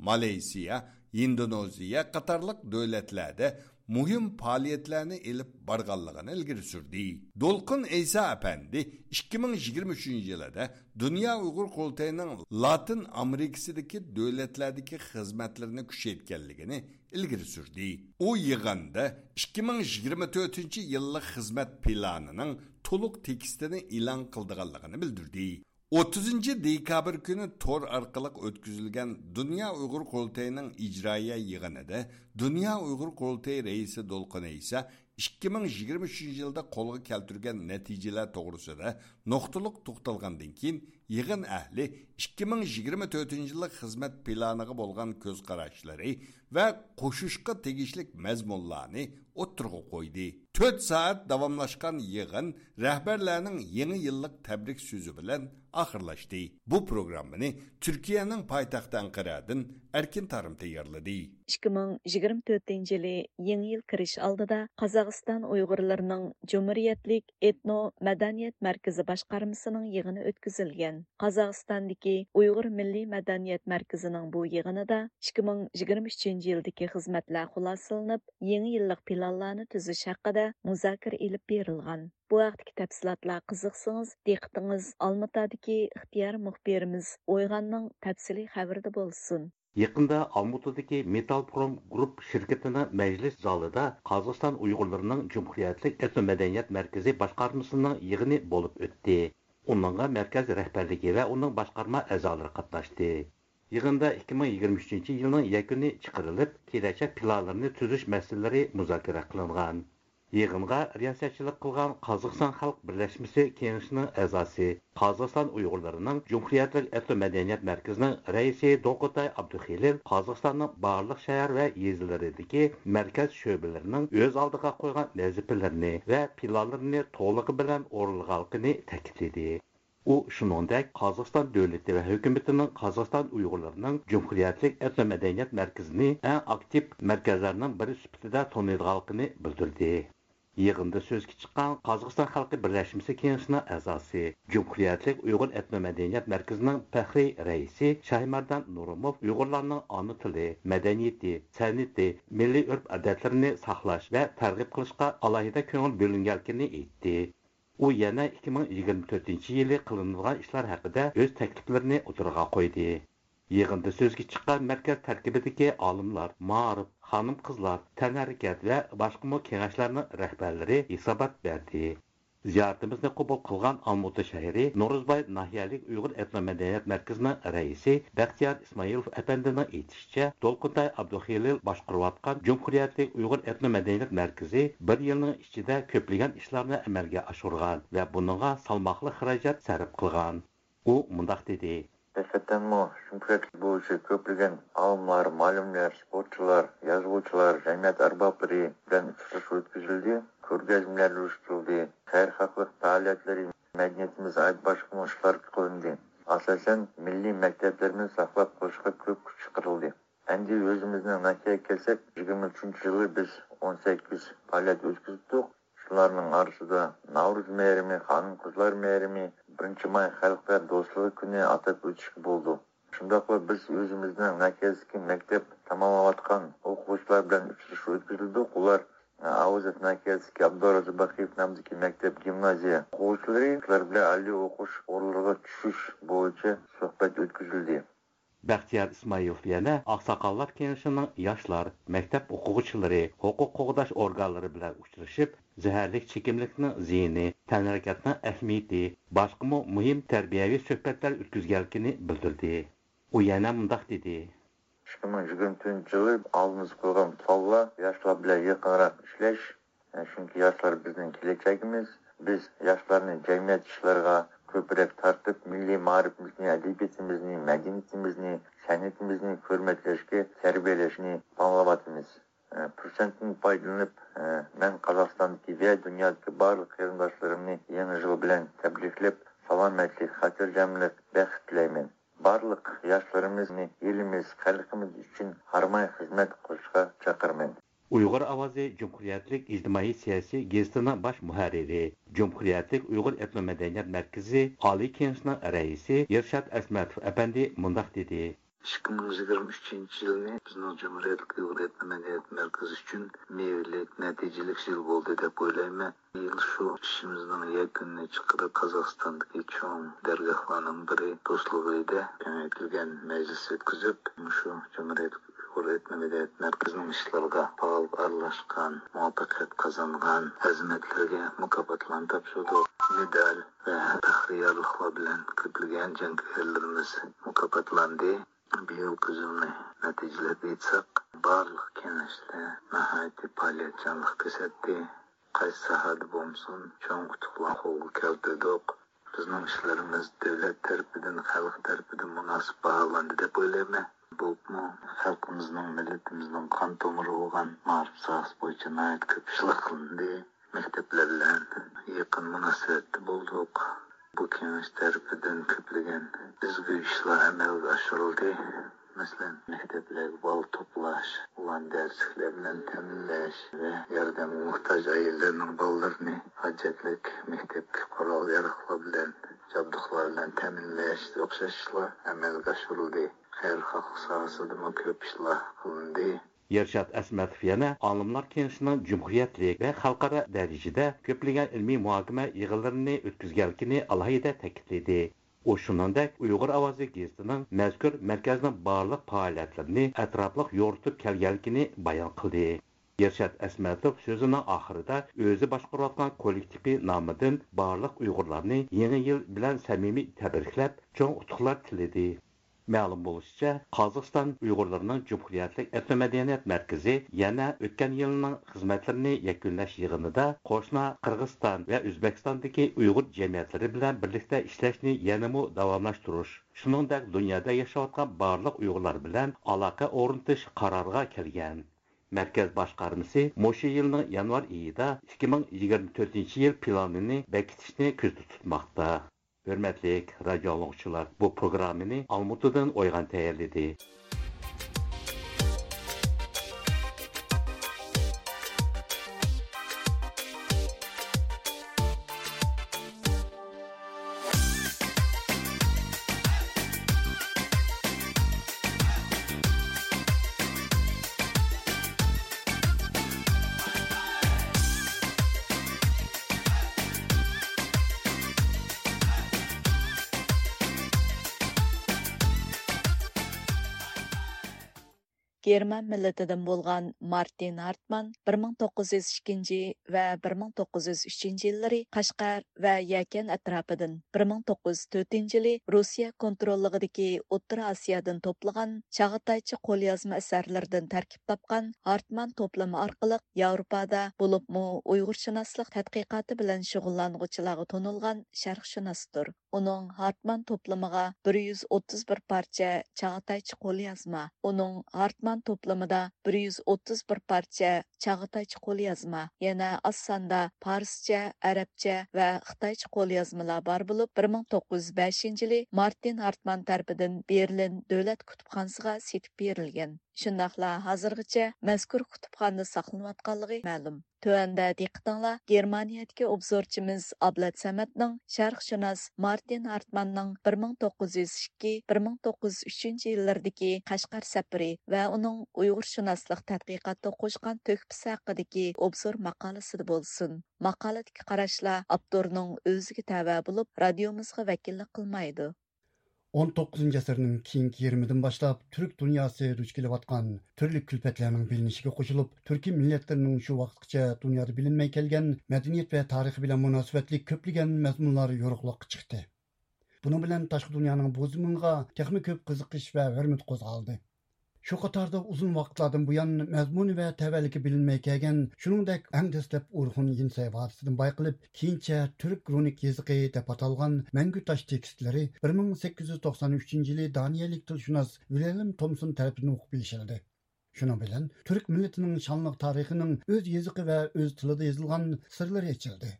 مالايسىيا، ھىندونېزىيە قاتارلىق دۆلەتلەردە مۇھىم پائالىيەتلەرنى ئېلىپ بارغانلىقىنى ئىلگىرى سۈردى. دولقۇن ئەيسا ئەپەندى ئىككى مىڭ يىگىرمە ئۈچىنچى يىلىدا دۇنيا ئۇيغۇر قۇرۇلتىيىنىڭ لاتىن ئامېرىكىسىدىكى دۆلەتلەردىكى خىزمەتلىرىنى كۈچەيتكەنلىكىنى ئىلگىرى سۈردى. ئۇ يىغىندا ئىككى مىڭ يىگىرمە تۆتىنچى يىللىق خىزمەت پىلانىنىڭ تولۇق تېكىستىنى ئېلان قىلىدىغانلىقىنى بىلدۈردى. ئوتتۇزىنچى دېكابىر كۈنى تور ئارقىلىق ئۆتكۈزۈلگەن دۇنيا ئۇيغۇر قۇرۇلتىيىنىڭ ئىجرائىيە يىغىنىدا دۇنيا ئۇيغۇر قۇرۇلتىيى رەئىسى دولقۇن ئەيسا ئىككى مىڭ يىگىرمە ئۈچىنچى يىلدا قولغا كەلتۈرگەن نەتىجىلەر توغرىسىدا نۇقتىلىق توختالغاندىن كېيىن، يىغىن ئەھلى ئىككى مىڭ يىگىرمە تۆتىنچى يىللىق خىزمەت پىلانىغا بولغان كۆز قاراشلىرى ۋە قوشۇشقا تېگىشلىك مەزمۇنلارنى ئوتتۇرىغا قويدى. تۆت سائەت داۋاملاشقان يىغىن رەھبەرلەرنىڭ يېڭى يىللىق تەبرىك سۆزى بىلەن ئاخىرلاشتى. بۇ پروگراممىنى تۈركىيەنىڭ پايتەختى ئەنقەرەدىن ئەركىن تارىم تەييارلىدى. ئىككى مىڭ يىگىرمە تۆتىنچى يىلى يېڭى يىل كىرىش ئالدىدا قازاقىستان ئۇيغۇرلىرىنىڭ جۇمھۇرىيەتلىك ئېتنو مەدەنىيەت مەركىزى باشقارمىسىنىڭ يىغىنى ئۆتكۈزۈلگەن. قازاقىستاندىكى ئۇيغۇر مىللىي مەدەنىيەت مەركىزىنىڭ بۇ يىغىنىدا ئىككى مىڭ يىگىرمە ئۈچىنچى يىلدىكى خىزمەتلەر خۇلاسىلىنىپ، يېڭى يىللىق پىلانلارنى تۈزۈش ھەققىدە مۇزاكىرە ئېلىپ بېرىلغان. بۇ ھەقتىكى تەپسىلاتلار قىزىقسىڭىز، دىققىتىڭىز ئالمۇتادىكى ئىختىيارىي مۇخبىرىمىز ئويغاننىڭ تەپسىلىي خەۋىرىدە بولسۇن. يېقىندا ئالمۇتىدىكى مېتال پروم گۇرۇپ شىركىتىنىڭ مەجلىس زالىدا قازاقىستان ئۇيغۇرلىرىنىڭ جۇمھۇرىيەتلىك ئېتنو مەدەنىيەت مەركىزى باشقارمىسىنىڭ يىغىنى بولۇپ ئۆتتى. ئۇنىڭغا مەركەز رەھبەرلىكى ۋە ئۇنىڭ باشقارما ئەزالىرى قاتناشتى. يىغىندا ئىككى مىڭ يىگىرمە ئۈچىنچى يىلنىڭ يەكۈنى چىقىرىلىپ، كېلەچەك پىلانلىرىنى تۈزۈش مەسىلىلىرى مۇزاكىرە قىلىنغان. يىغىنغا رىياسەتچىلىك قىلغان قازاقىستان خەلق بىرلەشمىسى كېڭىشىنىڭ ئەزاسى، قازاقىستان ئۇيغۇرلىرىنىڭ جۇمھۇرىيەتلىك ئېتنو مەدەنىيەت مەركىزىنىڭ رەئىسى دوقۇتاي ئابدۇخېلىل قازاقىستاننىڭ بارلىق شەھەر ۋە يېزىلىرىدىكى مەركەز شۆبىلىرىنىڭ ئۆز ئالدىغا قويغان ۋەزىپىلىرىنى ۋە پىلانلىرىنى تولۇقى بىلەن ئورۇنلىغانلىقىنى تەكىتلىدى. ئۇ شۇنىڭدەك قازاقىستان دۆلىتى ۋە ھۆكۈمىتىنىڭ قازاقىستان ئۇيغۇرلىرىنىڭ جۇمھۇرىيەتلىك ئېتنو مەدەنىيەت مەركىزىنى ئەڭ ئاكتىپ مەركەزلەرنىڭ بىرى سۈپىتىدە تونۇيدىغانلىقىنى بىلدۈردى. يىغىندا سۆزگە چىققان قازاقىستان خەلقى بىرلەشمىسى كېڭىشىنىڭ ئەزاسى، جۇمھۇرىيەتلىك ئۇيغۇر ئېتنو مەدەنىيەت مەركىزىنىڭ پەخرىي رەئىسى شاھىمەردان نۇرۇموف ئۇيغۇرلارنىڭ ئانا تىلى، مەدەنىيىتى، سەنئىتى، مىللىي ئۆرپ-ئادەتلىرىنى ساقلاش ۋە تەرغىب قىلىشقا ئالاھىدە كۆڭۈل بۆلۈنگەنلىكىنى ئېيتتى. ئۇ يەنە ئىككى مىڭ يىگىرمە تۆتىنچى يىلى قىلىنىدىغان ئىشلار ھەققىدە ئۆز تەكلىپلىرىنى ئوتتۇرىغا قويدى. يىغىندا سۆزگە چىققان مەركەز تەركىبىدىكى ئالىملار، مائارىپ، خانىم-قىزلار، تەنھەرىكەت ۋە باشقىمۇ كېڭەشلەرنىڭ رەھبەرلىرى ھېسابات بەردى. زىيارىتىمىزنى قوبۇل قىلغان ئالمۇتا شەھىرى نورۇزباي ناھىيەلىك ئۇيغۇر ئېتنو مەدەنىيەت مەركىزىنىڭ رەئىسى بەختىيار ئىسمائىلوف ئەپەندىنىڭ ئېيتىشىچە، دولقۇنتاي ئابدۇخېلىل باشقۇرۇۋاتقان جۇمھۇرىيەتلىك ئۇيغۇر ئېتنو مەدەنىيەت مەركىزى بىر يىلنىڭ ئىچىدە كۆپلىگەن ئىشلارنى ئەمەلگە ئاشۇرغان ۋە بۇنىڭغا سالماقلىق خىراجەت سەرپ قىلغان. ئۇ مۇنداق دېدى. ھەقىقەتەنمۇ جۇمھۇرىيەت بويىچە كۆپلىگەن ئالىملار، مۇئەللىملەر، سپورتچىلار، يازغۇچىلار، جەمئىيەت ئەربابلىرى بىلەن ئۇچرىشىش ئۆتكۈزۈلدى، كۆرگەزمىلەر ئۇيۇشتۇرۇلدى، خەيرخاھلىق پائالىيەتلىرى، مەدەنىيىتىمىزگە ئائىت باشقىمۇ ئىشلار قىلىندى. ئاساسەن، مىللىي مەكتەپلىرىمىزنى ساقلاپ قېلىشقا كۆپ كۈچ چىقىرىلدى. ئەمدى ئۆزىمىزنىڭ ناھىيەگە كەلسەك، يىگىرمە ئۈچىنچى يىلى بىز ئون سەككىز پائالىيەت ئۆتكۈزدۇق. شۇلارنىڭ ئارىسىدا ناۋرۇز مەيرىمى، خانىم-قىزلار مەيرىمى، بىرىنچى ماي خەلقلەر دوستلۇقى كۈنى ئاتاپ ئۆتۈشكە بولىدۇ. شۇنداقلا بىز ئۆزىمىزنىڭ مەركەزدىكى مەكتەپ تاماملاۋاتقان ئوقۇغۇچىلار بىلەن ئۇچرىشىش ئۆتكۈزدۇق. ئۇلار، ئە، ئاۋازەت مەركەزدىكى ئابدۇرازاق باقىيېۋ نامىدىكى مەكتەپ، گىمنازىيە ئوقۇغۇچىلىرى، شۇلار بىلەن ئالىي ئوقۇش ئورۇنلىرىغا چۈشۈش بويىچە سۆھبەت ئۆتكۈزۈلدى. بەختىيار ئىسمائىلوف يەنە ئاقساقاللار كېڭىشىنىڭ ياشلار، مەكتەپ ئوقۇغۇچىلىرى، ھوقۇق قوغداش ئورگانلىرى بىلەن ئۇچرىشىپ، زەھەرلىك چېكىملىكنىڭ زىيىنى، تەنھەرىكەتنىڭ ئەھمىيىتى، باشقىمۇ مۇھىم تەربىيەۋى سۆھبەتلەر ئۆتكۈزگەنلىكىنى بىلدۈردى. ئۇ يەنە مۇنداق دېدى. ئىككى مىڭ يىگىرمە تۆتىنچى يىلى ئالدىمىزغا قويغان پىلانلار ياشلار بىلەن يېقىنراق ئىشلەش، چۈنكى ياشلار بىزنىڭ كېلەچەكىمىز. بىز ياشلارنى جەمئىيەت ئىشلىرىغا كۆپرەك تارتىپ، مىللىي مائارىپىمىزنى، ئەدەبىياتىمىزنى، مەدەنىيىتىمىزنى، سەنئىتىمىزنى ھۆرمەتلەشكە تەربىيەلەشنى پىلانلاۋاتىمىز. پۇرسەتتىن پايدىلىنىپ، مەن قازاقىستاندىكى ۋە دۇنيادىكى بارلىق قېرىنداشلىرىمنى يېڭى يىل بىلەن تەبرىكلەپ، سالامەتلىك، خاتىرجەملىك، بەخت تىلەيمەن. بارلىق ياشلىرىمىزنى ئېلىمىز، خەلقىمىز ئۈچۈن ھارماي خىزمەت قىلىشقا چاقىرىمەن. ئۇيغۇر ئاۋازى جۇمھۇرىيەتلىك ئىجتىمائىي سىياسىي گېزىتىنىڭ باش مۇھەررىرى، جۇمھۇرىيەتلىك ئۇيغۇر ئېتنو مەدەنىيەت مەركىزى ئالىي كېڭىشىنىڭ رەئىسى ئىرشات ئەسمەتوف ئەپەندى مۇنداق دېدى. ئىككى مىڭ يىگىرمە ئۈچىنچى يىلنى بىزنىڭ جۇمھۇرىيەتلىك ئۇيغۇر ئېتنو مەدەنىيەت مەركىزى ئۈچۈن مېۋىلىك، نەتىجىلىك يىل بولدى دەپ ئويلايمەن. بۇ يىل شۇ ئىشىمىزنىڭ يەكۈنىنى چىقىرىپ، قازاقىستاندىكى چوڭ دەرگاھلارنىڭ بىرى دوستلۇق ئۆيىدە كېڭەيتىلگەن مەجلىس ئۆتكۈزۈپ، مۇشۇ جۇمھۇرىيەتلىك ئۇيغۇر ئېتنو مەدەنىيەت مەركىزىنىڭ ئىشلىرىغا پائال ئارىلاشقان، مۇۋەپپەقىيەت قازانغان خىزمەتلەرگە مۇكاپاتلارنى تاپشۇردۇق. مېدال ۋە پەخرىي يارلىقلار بىلەن كۆپلىگەن جەڭگىۋەرلىرىمىز مۇكاپاتلاندى. بىيىلقى يىلنى نەتىجىلەپ ئېيتساق، بارلىق كېڭەشلەر ناھايىتى پائالىيەتچانلىق كۆرسەتتى. قايسى ساھەدە بولمىسۇن، چوڭ ئۇتۇقلار قولغا كەلتۈردۇق. بىزنىڭ ئىشلىرىمىز دۆلەت تەرىپىدىن، خەلق تەرىپىدىن مۇناسىپ باھالاندى دەپ ئويلايمەن. بولۇپمۇ خەلقىمىزنىڭ، مىللىتىمىزنىڭ قان تومۇرى بولغان مائارىپ ساھەسى بويىچە ناھايىتى كۆپ ئىشلار قىلىندى. مەكتەپلەر بىلەن يېقىن مۇناسىۋەتتە بولدۇق. بۇ كېڭەش تەرىپىدىن كۆپلىگەن ئىزغۇ ئىشلار ئەمەلگە ئاشۇرۇلدى. مەسىلەن، مەكتەپلەرگە بالا توپلاش، ئۇلارنى دەرسلىكلەر بىلەن تەمىنلەش ۋە ياردەمگە موھتاج ئائىلىلەرنىڭ بالىلىرىنى ھاجەتلىك مەكتەپكە قورال-ياراغلار بىلەن، جابدۇقلار بىلەن تەمىنلەشكە ئوخشاش ئىشلار ئەمەلگە ئاشۇرۇلدى. خەيرخاھلىق ساھەسىدىمۇ كۆپ ئىشلار قىلىندى. ئىرشات ئەسمەتوف يەنە ئالىملار كېڭىشىنىڭ جۇمھۇرىيەتلىك ۋە خەلقئارا دەرىجىدە كۆپلىگەن ئىلمىي مۇھاكىمە يىغىنلىرىنى ئۆتكۈزگەنلىكىنى ئالاھىدە تەكىتلىدى. ئۇ شۇنىڭدەك ئۇيغۇر ئاۋازى گېزىتىنىڭ مەزكۇر مەركەزنىڭ بارلىق پائالىيەتلىرىنى ئەتراپلىق يورۇتۇپ كەلگەنلىكىنى بايان قىلدى. ئىرشات ئەسمەتوف سۆزىنىڭ ئاخىرىدا ئۆزى باشقۇرۇۋاتقان كوللېكتىپى نامىدىن بارلىق ئۇيغۇرلارنى يېڭى يىل بىلەن سەمىمىي تەبرىكلەپ، چوڭ ئۇتۇقلار تىلىدى. مەلۇم بولۇشىچە، قازاقىستان ئۇيغۇرلىرىنىڭ جۇمھۇرىيەتلىك ئېتنو مەدەنىيەت مەركىزى يەنە ئۆتكەن يىلنىڭ خىزمەتلىرىنى يەكۈنلەش يىغىنىدا قوشنا قىرغىزىستان ۋە ئۆزبېكىستاندىكى ئۇيغۇر جەمئىيەتلىرى بىلەن بىرلىكتە ئىشلەشنى يەنىمۇ داۋاملاشتۇرۇش، شۇنىڭدەك دۇنيادا ياشاۋاتقان بارلىق ئۇيغۇرلار بىلەن ئالاقە ئورنىتىش قارارىغا كەلگەن. مەركەز باشقارمىسى مۇشۇ يىلنىڭ يانۋار ئېيىدا ئىككى مىڭ يىگىرمە تۆتىنچى يىل پىلانىنى بېكىتىشنى كۆزدە تۇتماقتا. ھۆرمەتلىك رادىيو ئاڭلىغۇچىلار، بۇ پروگراممىنى ئالمۇتىدىن ئويغان تەييارلىدى. گېرمان مىللىتىدىن بولغان مارتىن ھارتمان بىر مىڭ توققۇز يۈز ئىككىنچى ۋە بىر مىڭ توققۇز يۈز ئۈچىنچى يىللىرى قەشقەر ۋە يەكەن ئەتراپىدىن، بىر مىڭ توققۇز يۈز تۆتىنچى يىلى رۇسىيە كونتروللۇقىدىكى ئوتتۇرا ئاسىيادىن توپلىغان چاغاتايچە قوليازما ئەسەرلىرىدىن تەركىب تاپقان ھارتمان توپلىمى ئارقىلىق ياۋروپادا، بولۇپمۇ ئۇيغۇرشۇناسلىق تەتقىقاتى بىلەن شۇغۇللانغۇچىلارغا تونۇلغان شەرقشۇناستۇر. ئۇنىڭ ھارتمان توپلىمىغا بىر يۈز ئوتتۇز بىر پارچە چاغاتايچە قوليازما، ئۇنىڭ ھارتمان توپلىمىدا بىر يۈز ئوتتۇز بىر پارچە چاغاتايچە قوليازما، يەنە ئاز ساندا پارسچە، ئەرەبچە ۋە خىتايچە قوليازمىلار بار بولۇپ، بىر مىڭ توققۇز يۈز بەشىنچى يىلى مارتىن ھارتمان تەرىپىدىن بېرلىن دۆلەت كۇتۇپخانىسىغا سېتىپ بېرىلگەن. شۇنداقلا ھازىرغىچە مەزكۇر كۇتۇپخانىدا ساقلىنىۋاتقانلىقى مەلۇم. تۆۋەندە دىققىتىڭلار گېرمانىيەدىكى ئوبزورچىمىز ئابلەت سەمەتنىڭ شەرقشۇناس مارتىن ھارتماننىڭ بىر مىڭ توققۇز يۈز ئىككى، بىر مىڭ توققۇز يۈز ئۈچىنچى يىللىرىدىكى قەشقەر سەپىرى ۋە ئۇنىڭ ئۇيغۇرشۇناسلىق تەتقىقاتتا قوشقان تۆھپىسى ھەققىدىكى ئوبزور ماقالىسىدە بولسۇن. ماقالىدىكى قاراشلار ئاپتورنىڭ ئۆزىگە تەۋە بولۇپ، رادىيومىزغا ۋەكىللىك قىلمايدۇ. ئون توققۇزىنچى ئەسىرنىڭ كېيىنكى يېرىمىدىن باشلاپ تۈرك دۇنياسى دۇچ كېلىۋاتقان تۈرلۈك كۈلپەتلەرنىڭ بىلىنىشىگە قوشۇلۇپ، تۈركىي مىللەتلەرنىڭ شۇ ۋاقىتقىچە دۇنيادا بىلىنمەي كەلگەن مەدەنىيەت ۋە تارىخى بىلەن مۇناسىۋەتلىك كۆپلىگەن مەزمۇنلار يورۇقلۇققا چىقتى. بۇنىڭ بىلەن تاشقى دۇنيانىڭ بۇ زېمىنغا تېخىمۇ كۆپ قىزىقىش ۋە ھۆرمىتى قوزغالدى. شۇ قاتاردا ئۇزۇن ۋاقىتلاردىن بۇيان مەزمۇنى ۋە تەۋەلىكى بىلىنمەي كەلگەن، شۇنىڭدەك ئەڭ دەسلەپ ئورخۇن يىنسەي ۋادىسىدىن بايقىلىپ، كېيىنچە تۈرك رۇنىك يېزىقى دەپ ئاتالغان مەڭگۈ تاش تېكىستلىرى بىر مىڭ سەككىز يۈز توقسان ئۈچىنچى يىلى دانىيەلىك تىلشۇناس ۋىلھېلم تومسون تەرىپىدىن ئوقۇپ يېشىلدى. شۇنىڭ بىلەن تۈرك مىللىتىنىڭ شانلىق تارىخىنىڭ ئۆز يېزىقى ۋە ئۆز تىلىدا يېزىلغان سىرلىرى ئېچىلدى.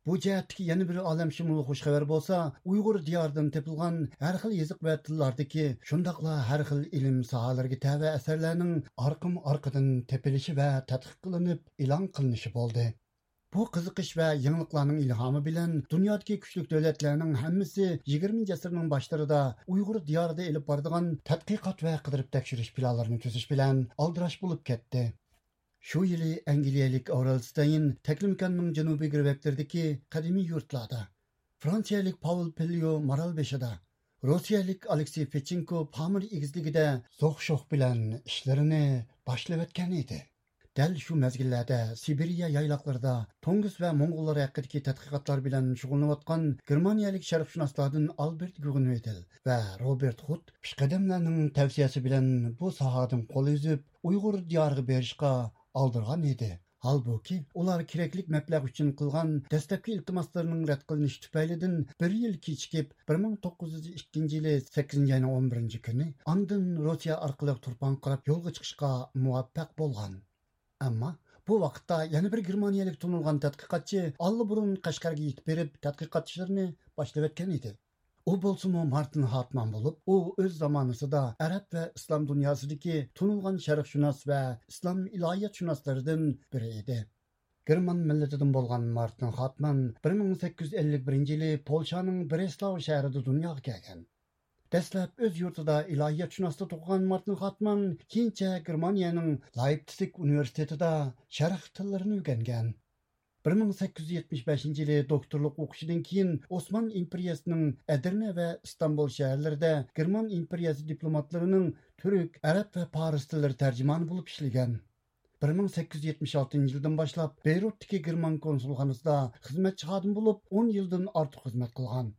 بۇ جەھەتتىكى يەنە بىر ئالەمشۇمۇل خۇش خەۋەر بولسا، ئۇيغۇر دىيارىدىن تېپىلغان ھەر خىل يېزىق ۋە تىللاردىكى، شۇنداقلا ھەر خىل ئىلىم ساھەلىرىگە تەۋە ئەسەرلەرنىڭ ئارقىمۇ ئارقىدىن تېپىلىشى ۋە تەتقىق قىلىنىپ ئېلان قىلىنىشى بولدى. بۇ قىزىقىش ۋە يېڭىلىقلارنىڭ ئىلھامى بىلەن دۇنيادىكى كۈچلۈك دۆلەتلەرنىڭ ھەممىسى يىگىرمىنچى ئەسىرنىڭ باشلىرىدا ئۇيغۇر دىيارىدا ئېلىپ بارىدىغان تەتقىقات ۋە قىدىرىپ تەكشۈرۈش پىلانلىرىنى تۈزۈش بىلەن ئالدىراش بولۇپ كەتتى. شۇ يىلى ئەنگلىيەلىك ئاۋرېل ستەين تەكلىماكاننىڭ جەنۇبىي گىرۋەكلىرىدىكى قەدىمىي يۇرتلاردا، فرانسىيەلىك پاۋل پېليو مارالبېشىدا، روسىيەلىك ئالېكسىي فېچېنكو پامىر ئېگىزلىكىدە زوق شوخ بىلەن ئىشلىرىنى باشلىۋەتكەن ئىدى. دەل شۇ مەزگىللەردە سىبىرىيە يايلاقلىرىدا تۇڭگۇز ۋە موڭغۇللار ھەققىدىكى تەتقىقاتلار بىلەن شۇغۇللىنىۋاتقان گېرمانىيەلىك شەرقشۇناسلاردىن ئالبېرت گۇگېنۋىدېل ۋە روبېرت خۇت پېشقەدەملەرنىڭ تەۋسىيەسى بىلەن بۇ ساھەدىن قول ئۈزۈپ، ئۇيغۇر دىيارىغا بېرىشقا ئالدىرىغان ئىدى. ھالبۇكى، ئۇلار كېرەكلىك مەبلەغ ئۈچۈن قىلغان دەسلەپكى ئىلتىماسلىرىنىڭ رەت قىلىنىشى تۈپەيلىدىن بىر يىل كېچىكىپ، بىر مىڭ توققۇز يۈز ئىككىنچى يىلى سەككىزىنچى ئاينىڭ ئون بىرىنچى كۈنى ئاندىن روسىيە ئارقىلىق تۇرپانغا قاراپ يولغا چىقىشقا مۇۋەپپەق بولغان. ئەمما بۇ ۋاقىتتا يەنە بىر گېرمانىيەلىك تونۇلغان تەتقىقاتچى ئاللىبۇرۇن قەشقەرگە يېتىپ بېرىپ، تەتقىقات ئىشلىرىنى باشلىۋەتكەن ئىدى. ئۇ بولسىمۇ مارتىن ھارتمان بولۇپ، ئۇ ئۆز زامانىسىدا ئەرەب ۋە ئىسلام دۇنياسىدىكى تونۇلغان شەرقشۇناس ۋە ئىسلام ئىلاھىيەتشۇناسلىرىدىن بىرى ئىدى. گېرمان مىللىتىدىن بولغان مارتىن خاتمان بىر مىڭ سەككىز يۈز ئەللىك بىرىنچى يىلى پولشانىڭ برېسلاۋ شەھىرىدە دۇنياغا كەلگەن. دەسلەپ ئۆز يۇرتىدا ئىلاھىيەتشۇناسلىق ئوقۇغان مارتىن خاتمان كېيىنچە گېرمانىيەنىڭ لايپتسىگ ئۇنىۋېرسىتېتىدا شەرق تىللىرىنى ئۆگەنگەن. بىر مىڭ سەككىز يۈز يەتمىش بەشىنچى يىلى دوكتورلۇق ئوقۇشىدىن كېيىن ئوسمان ئىمپېرىيەسىنىڭ ئەدىرنە ۋە ئىستانبۇل شەھەرلىرىدە گېرمان ئىمپېرىيەسى دىپلوماتلىرىنىڭ تۈرك، ئەرەب ۋە پارس تىللىرى تەرجىمانى بولۇپ ئىشلىگەن. بىر مىڭ سەككىز يۈز يەتمىش ئالتىنچى يىلدىن باشلاپ بېيرۇتتىكى گېرمان كونسۇلخانىسىدا خىزمەتچى خادىم بولۇپ، ئون يىلدىن ئارتۇق خىزمەت قىلغان.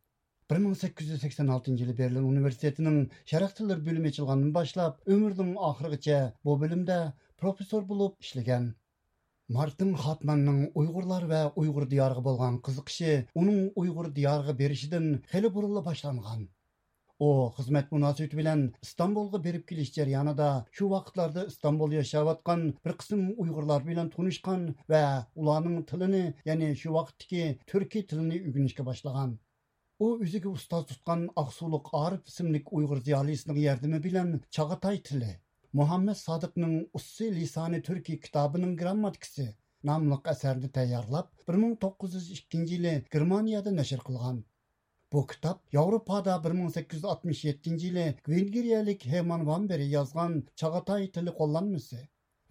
بىر مىڭ سەككىز يۈز سەكسەن ئالتىنچى يىلى بېرلىن ئۇنىۋېرسىتېتىنىڭ شەرق تىللىرى بۆلۈمى ئېچىلغاندىن باشلاپ، ئۆمرىنىڭ ئاخىرىغىچە بۇ بۆلۈمدە پروفېسسور بولۇپ ئىشلىگەن. مارتىن خاتماننىڭ ئۇيغۇرلار ۋە ئۇيغۇر دىيارىغا بولغان قىزىقىشى ئۇنىڭ ئۇيغۇر دىيارىغا بېرىشىدىن خېلى بۇرۇنلا باشلانغان. ئۇ خىزمەت مۇناسىۋىتى بىلەن ئىستانبۇلغا بېرىپ كېلىش جەريانىدا شۇ ۋاقىتلاردا ئىستانبۇلدا ياشاۋاتقان بىر قىسىم ئۇيغۇرلار بىلەن تونۇشقان ۋە ئۇلارنىڭ تىلىنى، يەنى شۇ ۋاقىتتىكى تۈركىي تىلىنى ئۆگىنىشكە باشلىغان. ئۇ ئۆزىگە ئۇستاز تۇتقان ئاقسۇلۇق ئارىپ ئىسىملىك ئۇيغۇر زىيالىيسىنىڭ ياردىمى بىلەن چاغاتاي تىلى، مۇھەممەد سادىقنىڭ ئۇسسى لىسانى تۈركى كىتابىنىڭ گرامماتىكىسى ناملىق ئەسەرنى تەييارلاپ، بىر مىڭ توققۇز يۈز ئىككىنچى يىلى گېرمانىيەدە نەشر قىلغان. بۇ كىتاب ياۋروپادا بىر مىڭ سەككىز يۈز ئاتمىش يەتتىنچى يىلى ۋېنگرىيەلىك ھېرمان ۋان بېرى يازغان چاغاتاي تىلى قوللانمىسى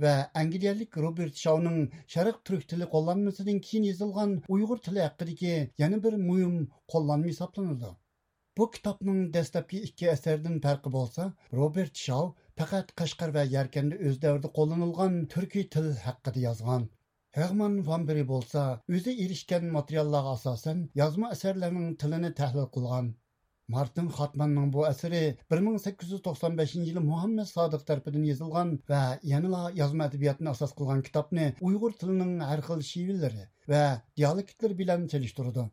ۋە ئەنگلىيەلىك روبېرت شاۋنىڭ شەرق تۈرك تىلى قوللانمىسىدىن كېيىن يېزىلغان ئۇيغۇر تىلى ھەققىدىكى يەنە بىر مۇھىم قوللانما ھېسابلىنىدۇ. بۇ كىتابنىڭ دەسلەپكى ئىككى ئەسەردىن پەرقى بولسا، روبېرت شاۋ پەقەت قەشقەر ۋە يەركەندە ئۆز دەۋرىدە قوللىنىلغان تۈركىي تىل ھەققىدە يازغان. ھېرمان ۋان بېرى بولسا ئۆزى ئېرىشكەن ماتېرىياللارغا ئاساسەن يازما ئەسەرلەرنىڭ تىلىنى تەھلىل قىلغان. مارتىن خاتماننىڭ بۇ ئەسىرى بىر مىڭ سەككىز يۈز توقسان بەشىنچى يىلى مۇھەممەد سادىق تەرىپىدىن يېزىلغان ۋە يەنىلا يازما ئەدەبىياتنى ئاساس قىلغان كىتابنى ئۇيغۇر تىلىنىڭ ھەر خىل شېۋىلىرى ۋە دىيالېكتلىرى بىلەن سېلىشتۇرىدۇ.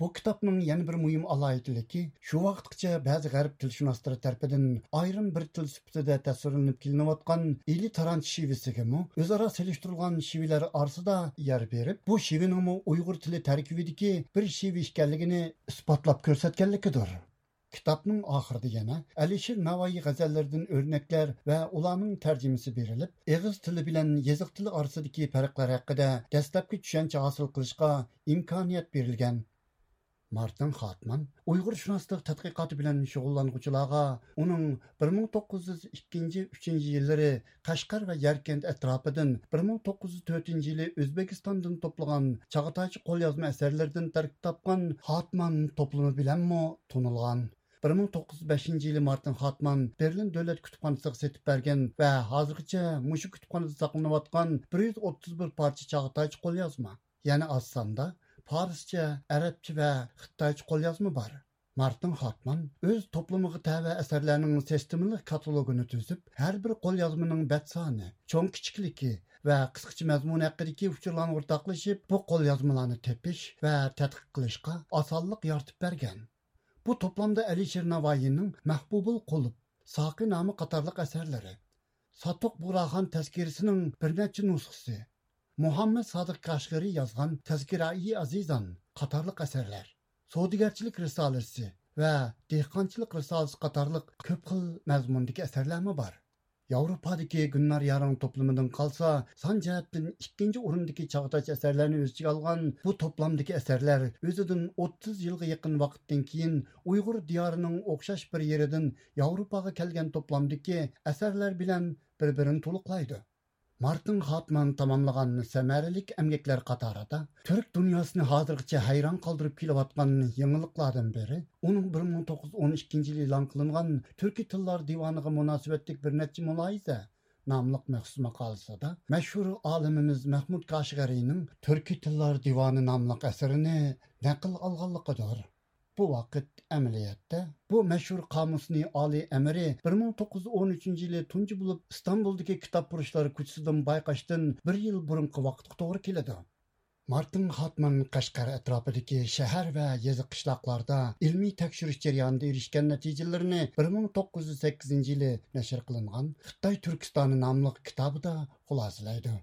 بۇ كىتابنىڭ يەنە بىر مۇھىم ئالاھىدىلىكى، شۇ ۋاقىتقىچە بەزى غەرب تىلشۇناسلىرى تەرىپىدىن ئايرىم بىر تىل سۈپىتىدە تەسۋىرلىنىپ كېلىنىۋاتقان ئىلى تارانچ شېۋىسىگىمۇ ئۆزئارا سېلىشتۇرۇلغان شېۋىلەر ئارىسىدا يەر بېرىپ، بۇ شېۋىنىڭمۇ ئۇيغۇر تىلى تەركىبىدىكى بىر شېۋە ئىكەنلىكىنى ئىسپاتلاپ كۆرسەتكەنلىكىدۇر. كىتابنىڭ ئاخىرىدا يەنە ئەلىشىر ناۋايى غەزەللىرىدىن ئۆرنەكلەر ۋە ئۇلارنىڭ تەرجىمىسى بېرىلىپ، ئېغىز تىلى بىلەن يېزىق تىلى ئارىسىدىكى پەرقلەر ھەققىدە دەسلەپكى چۈشەنچە ھاسىل قىلىشقا ئىمكانىيەت بېرىلگەن. مارتىن خاتمان ئۇيغۇرشۇناسلىق تەتقىقاتى بىلەن شۇغۇللانغۇچىلارغا ئۇنىڭ بىر مىڭ توققۇز يۈز ئىككىنچى، ئۈچىنچى يىللىرى قەشقەر ۋە يەركەنت ئەتراپىدىن، بىر مىڭ توققۇز يۈز تۆتىنچى يىلى ئۆزبېكىستاندىن توپلىغان چاغاتايچە قوليازما ئەسەرلىرىدىن تەركىب تاپقان خاتمان توپلىمى بىلەنمۇ تونۇلغان. بىر مىڭ توققۇز يۈز بەشىنچى يىلى مارتىن خاتمان بېرلىن دۆلەت كۇتۇپخانىسىغا سېتىپ بەرگەن ۋە ھازىرغىچە مۇشۇ كۇتۇپخانىدا ساقلىنىۋاتقان بىر يۈز ئوتتۇز بىر پارچە چاغاتايچە قوليازما، يەنى ئاز ساندا پارسچە، ئەرەبچە ۋە خىتايچە قوليازما بار. مارتىن خاتمان ئۆز توپلىمىغا تەۋە ئەسەرلەرنىڭ سىستېمىلىق كاتالوگىنى تۈزۈپ، ھەر بىر قوليازمىنىڭ بەت سانى، چوڭ كىچىكلىكى ۋە قىسقىچە مەزمۇنى ھەققىدىكى ئۇچۇرلارنى ئورتاقلىشىپ، بۇ قوليازمىلارنى تېپىش ۋە تەتقىق قىلىشقا ئاسانلىق يارىتىپ بەرگەن. بۇ توپلامدا ئەلىشىر ناۋايىنىڭ مەھبۇبۇل قۇلۇپ، ساقى نامە قاتارلىق ئەسەرلىرى، ساتۇق بۇغراخان تەزكىرىسىنىڭ بىر نەچچە نۇسخىسى، مۇھەممەد سادىق كاشغىرى يازغان تەزكىرائى ئازىزان قاتارلىق ئەسەرلەر، سودىگەرچىلىك رىسالىسى ۋە دېھقانچىلىق رىسالىسى قاتارلىق كۆپ خىل مەزمۇندىكى ئەسەرلەرمۇ بار. ياۋروپادىكى گۈلنار يارىڭ توپلىمىدىن قالسا، سان جەھەتتىن ئىككىنچى ئورۇندىكى چاغاتايچە ئەسەرلەرنى ئۆز ئىچىگە ئالغان بۇ توپلامدىكى ئەسەرلەر ئۆزىدىن ئوتتۇز يىلغا يېقىن ۋاقىتتىن كېيىن ئۇيغۇر دىيارىنىڭ ئوخشاش بىر يېرىدىن ياۋروپاغا كەلگەن توپلامدىكى ئەسەرلەر بىلەن بىر-بىرىنى تولۇقلايدۇ. مارتىن خاتمان تاماملىغان سەمەرىلىك ئەمگەكلەر قاتارىدا تۈرك دۇنياسىنى ھازىرغىچە ھەيران قالدۇرۇپ كېلىۋاتقان يېڭىلىقلاردىن بىرى، ئۇنىڭ بىر مىڭ توققۇز يۈز ئون ئىككىنچى يىلى ئېلان قىلىنغان تۈركىي تىللار دىۋانىغا مۇناسىۋەتلىك بىر نەچچە مۇلاھىزە ناملىق مەخسۇس ماقالىسىدا مەشھۇر ئالىمىمىز مەھمۇد كاشغەرىنىڭ تۈركىي تىللار دىۋانى ناملىق ئەسىرىنى نەقىل ئالغانلىقىدۇر. بۇ ۋاقىت ئەمەلىيەتتە بۇ مەشھۇر قامۇسنى ئالىي ئەمىرى بىر مىڭ توققۇز يۈز ئون ئۈچىنچى يىلى تۇنجى بولۇپ ئىستانبۇلدىكى كىتاب پۇرۇشلار كوچىسىدىن بايقاشتىن بىر يىل بۇرۇنقى ۋاقىتقا توغرا كېلىدۇ. مارتىن خاتمان قەشقەر ئەتراپىدىكى شەھەر ۋە يېزا قىشلاقلاردا ئىلمىي تەكشۈرۈش جەريانىدا ئېرىشكەن نەتىجىلىرىنى بىر مىڭ توققۇز يۈز سەككىزىنچى يىلى نەشر قىلىنغان خىتاي تۈركىستانى ناملىق كىتابىدا خۇلاسىلەيدۇ.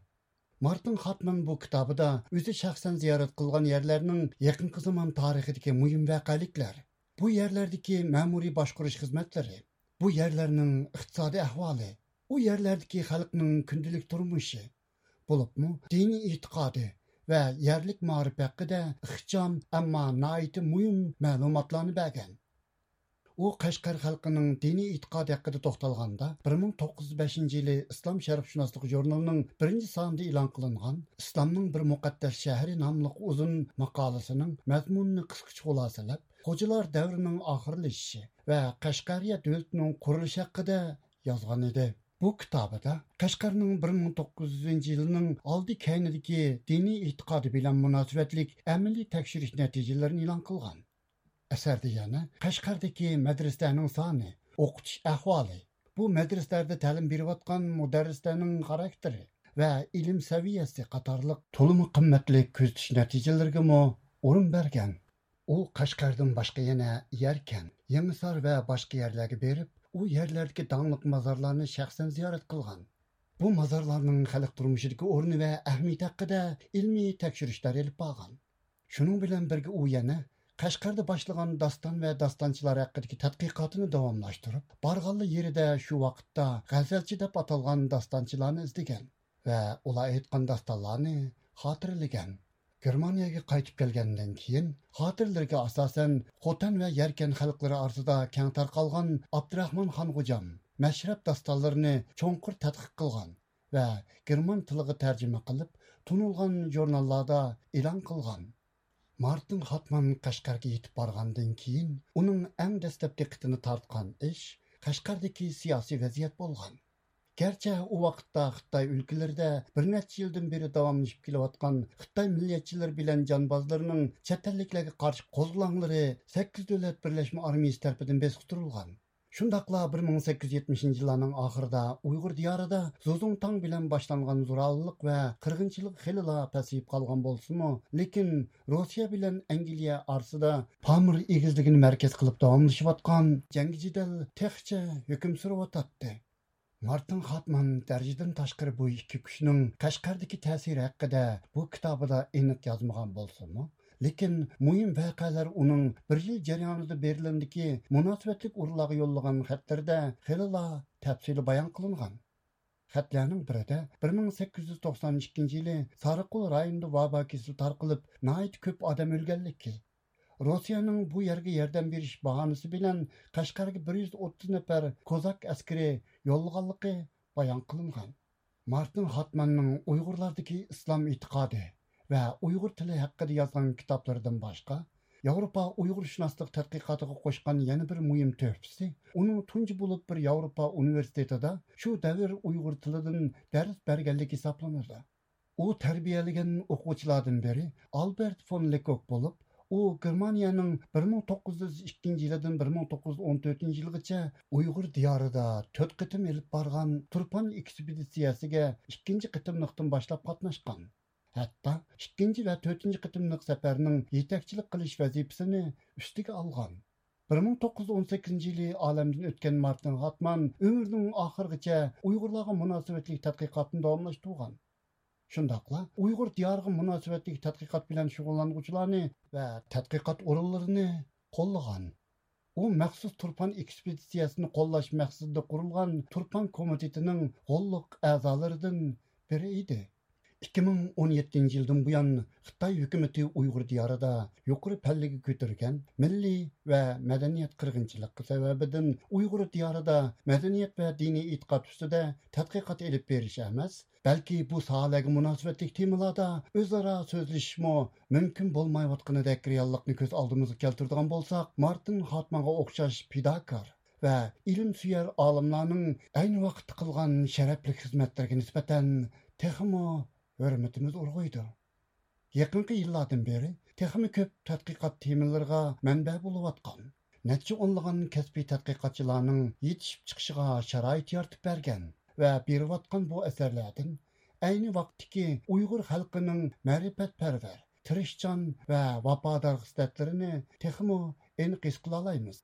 مارتىن خاتمان بۇ كىتابىدا ئۆزى شەخسەن زىيارەت قىلغان يەرلەرنىڭ يېقىنقى زامان تارىخىدىكى مۇھىم ۋەقەلىكلەر، بۇ يەرلەردىكى مەمۇرىي باشقۇرۇش خىزمەتلىرى، بۇ يەرلەرنىڭ ئىقتىسادىي ئەھۋالى، ئۇ يەرلەردىكى خەلقنىڭ كۈندىلىك تۇرمۇشى، بولۇپمۇ دىنىي ئېتىقادى ۋە يەرلىك مائارىپ ھەققىدە ئىخچام، ئەمما ناھايىتى مۇھىم مەلۇماتلارنى بەرگەن. ئۇ قەشقەر خەلقىنىڭ دىنىي ئېتىقادى ھەققىدە توختالغاندا، بىر مىڭ توققۇز يۈز بەشىنچى يىلى ئىسلام شەرقشۇناسلىق ژۇرنىلىنىڭ بىرىنچى سانىدا ئېلان قىلىنغان ئىسلامنىڭ بىر مۇقەددەس شەھىرى ناملىق ئۇزۇن ماقالىسىنىڭ مەزمۇنىنى قىسقىچە خۇلاسىلەپ، خوجىلار دەۋرىنىڭ ئاخىرلىشىشى ۋە قەشقەرىيە دۆلىتىنىڭ قۇرۇلۇشى ھەققىدە يازغان ئىدى. بۇ كىتابىدا قەشقەرنىڭ بىر مىڭ توققۇز يۈزىنچى يىلىنىڭ ئالدى كەينىدىكى دىنىي ئېتىقادى بىلەن مۇناسىۋەتلىك ئەمەلىي تەكشۈرۈش نەتىجىلىرىنى ئېلان قىلغان. ئەسەردە يەنە قەشقەردىكى مەدرىسىلەرنىڭ سانى، ئوقۇتۇش ئەھۋالى، بۇ مەدرىسىلەردە تەلىم بېرىۋاتقان مۇدەررىسلەرنىڭ خاراكتېرى ۋە ئىلىم سەۋىيەسى قاتارلىق تولىمۇ قىممەتلىك كۆزىتىش نەتىجىلىرىگىمۇ ئورۇن بەرگەن. ئۇ قەشقەردىن باشقا يەنە يەركەن، يېڭىسار ۋە باشقا يەرلەرگە بېرىپ، ئۇ يەرلەردىكى داڭلىق مازارلارنى شەخسەن زىيارەت قىلغان. بۇ مازارلارنىڭ خەلق تۇرمۇشىدىكى ئورنى ۋە ئەھمىيىتى ھەققىدە ئىلمىي تەكشۈرۈشلەر ئېلىپ بارغان. شۇنىڭ بىلەن بىرگە ئۇ يەنە قەشقەردە باشلىغان داستان ۋە داستانچىلار ھەققىدىكى تەتقىقاتىنى داۋاملاشتۇرۇپ، بارغانلا يېرىدە شۇ ۋاقىتتا غەزەلچى دەپ ئاتالغان داستانچىلارنى ئىزدىگەن ۋە ئۇلار ئېيتقان داستانلارنى خاتىرىلىگەن. گېرمانىيەگە قايتىپ كەلگەندىن كېيىن، خاتىرىلىرىگە ئاساسەن، خوتەن ۋە يەركەن خەلقلىرى ئارىسىدا كەڭ تارقالغان ئابدۇراخمان خانغوجام مەشرەپ داستانلىرىنى چوڭقۇر تەتقىق قىلغان ۋە گېرمان تىلىغا تەرجىمە قىلىپ، تونۇلغان ژۇرناللاردا ئېلان قىلغان. مارتىن خاتمان قەشقەرگە يېتىپ بارغاندىن كېيىن، ئۇنىڭ ئەڭ دەسلەپ دىققىتىنى تارتقان ئىش قەشقەردىكى سىياسىي ۋەزىيەت بولغان. گەرچە ئۇ ۋاقىتتا خىتاي ئۆلكىلىرىدە بىر نەچچە يىلدىن بېرى داۋاملىشىپ كېلىۋاتقان خىتاي مىللەتچىلىرى بىلەن جانبازلىرىنىڭ چەت ئەللىكلەرگە قارشى قوزغىلاڭلىرى سەككىز دۆلەت بىرلەشمە ئارمىيىسى تەرىپىدىن بېسىقتۇرۇلغان. شۇنداقلا بىر مىڭ سەككىز يۈز يەتمىشىنچى يىللارنىڭ ئاخىرىدا ئۇيغۇر دىيارىدا زۇزۇڭتاڭ بىلەن باشلانغان زورالىق ۋە قىرغىنچىلىق خېلىلا پەسىيىپ قالغان بولسىمۇ، لېكىن روسىيە بىلەن ئەنگلىيە ئارىسىدا پامىر ئېگىزلىكىنى مەركەز قىلىپ داۋاملىشىۋاتقان جەڭگى جېدەل تېخىچە ھۆكۈم سۈرۈۋاتاتتى. مارتىن خاتمان دەرىجىدىن تاشقىرى بۇ ئىككى كۈچنىڭ قەشقەردىكى تەسىرى ھەققىدە بۇ كىتابىدا ئېنىق يازمىغان بولسىمۇ، لېكىن مۇھىم ۋەقەلەر ئۇنىڭ بىر يىل جەريانىدا بېرلىندىكى مۇناسىۋەتلىك ئورۇنلارغا يوللىغان خەتلىرىدە خېلىلا تەپسىلىي بايان قىلىنغان. خەتلەرنىڭ بىرىدە بىر مىڭ سەككىز يۈز توقسان ئىككىنچى يىلى سارىقول رايونىدا ۋابا كېسىلى تارقىلىپ، ناھايىتى كۆپ ئادەم ئۆلگەنلىكى، روسىيەنىڭ بۇ يەرگە ياردەم بېرىش باھانىسى بىلەن قەشقەرگە بىر يۈز ئوتتۇز نەپەر كوزاك ئەسكىرى يوللىغانلىقى بايان قىلىنغان. مارتىن خاتماننىڭ ئۇيغۇرلاردىكى ئىسلام ئېتىقادى ۋە ئۇيغۇر تىلى ھەققىدە يازغان كىتابلىرىدىن باشقا، ياۋروپا ئۇيغۇرشۇناسلىق تەتقىقاتىغا قوشقان يەنە بىر مۇھىم تۆھپىسى، ئۇنىڭ تۇنجى بولۇپ بىر ياۋروپا ئۇنىۋېرسىتېتىدا شۇ دەۋر ئۇيغۇر تىلىدىن دەرس بەرگەنلىكى ھېسابلىنىدۇ. ئۇ تەربىيەلىگەن ئوقۇغۇچىلاردىن بىرى ئالبېرت فون لېكوك بولۇپ، ئۇ گېرمانىيەنىڭ بىر مىڭ توققۇز يۈز ئىككىنچى يىلىدىن بىر مىڭ توققۇز يۈز ئون تۆتىنچى يىلىغىچە ئۇيغۇر دىيارىدا تۆت قېتىم ئېلىپ بارغان تۇرپان ئېكسپېدىتسىيەسىگە ئىككىنچى قېتىملىقتىن باشلاپ قاتناشقان. ھەتتا ئىككىنچى ۋە تۆتىنچى قېتىملىق سەپەرنىڭ يېتەكچىلىك قىلىش ۋەزىپىسىنى ئۈستىگە ئالغان. بىر مىڭ توققۇز يۈز ئون سەككىزىنچى يىلى ئالەمدىن ئۆتكەن مارتىن خاتمان ئۆمرىنىڭ ئاخىرىغىچە ئۇيغۇرلارغا مۇناسىۋەتلىك تەتقىقاتنى داۋاملاشتۇرغان. شۇنداقلا ئۇيغۇر دىيارىغا مۇناسىۋەتلىك تەتقىقات بىلەن شۇغۇللانغۇچىلارنى ۋە تەتقىقات ئورۇنلىرىنى قوللىغان. ئۇ مەخسۇس تۇرپان ئېكسپېدىتسىيەسىنى قوللاش مەقسىتىدە قۇرۇلغان تۇرپان كومىتېتىنىڭ غوللۇق ئەزالىرىدىن بىرى ئىدى. ئىككى مىڭ ئون يەتتىنچى يىلدىن بۇيان، خىتاي ھۆكۈمىتى ئۇيغۇر دىيارىدا يۇقىرى پەللىگە كۆتۈرگەن مىللىي ۋە مەدەنىيەت قىرغىنچىلىقى سەۋەبىدىن ئۇيغۇر دىيارىدا مەدەنىيەت ۋە دىنىي ئېتىقاد ئۈستىدە تەتقىقات ئېلىپ بېرىش ئەمەس، بەلكى بۇ ساھەلەرگە مۇناسىۋەتلىك تېمىلاردا ئۆزئارا سۆزلىشىشمۇ مۇمكىن بولمايۋاتقىنىدەك رېئاللىقنى كۆز ئالدىمىزغا كەلتۈرىدىغان بولساق، مارتىن خاتمانغا ئوخشاش پىداكار ۋە ئىلىمسۆيەر ئالىملارنىڭ ئەينى ۋاقىتتا قىلغان شەرەپلىك خىزمەتلىرىگە نىسبەتەن تېخىمۇ ھۆرمىتىمىز ئۇرغۇيدۇ. يېقىنقى يىللاردىن بېرى تېخىمۇ كۆپ تەتقىقات تېمىلىرىغا مەنبە بولۇۋاتقان، نەچچە ئونلىغان كەسپىي تەتقىقاتچىلارنىڭ يېتىشىپ چىقىشىغا شارائىت يارىتىپ بەرگەن ۋە بېرىۋاتقان بۇ ئەسەرلەردىن ئەينى ۋاقىتتىكى ئۇيغۇر خەلقىنىڭ مەرىپەتپەرۋەر، تىرىشچان ۋە ۋاپادار خىسلەتلىرىنى تېخىمۇ ئېنىق ھېس قىلالايمىز.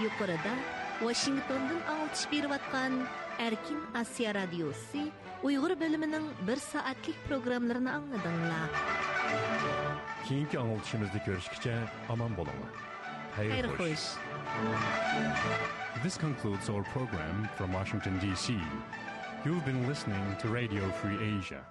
يۇقىرىدا ۋاشىنگتوندىن ئاڭلىتىش بېرىۋاتقان ئەركىن ئاسىيا رادىيوسى ئۇيغۇر بۆلۈمىنىڭ بىر سائەتلىك پروگراممىلىرىنى ئاڭلىدىڭلار. كېيىنكى ئاڭلىتىشىمىزدا كۆرۈشكىچە ئامان بولۇڭلار. خەير خوش. This concludes our program from Washington, D C. You've been listening to Radio Free Asia.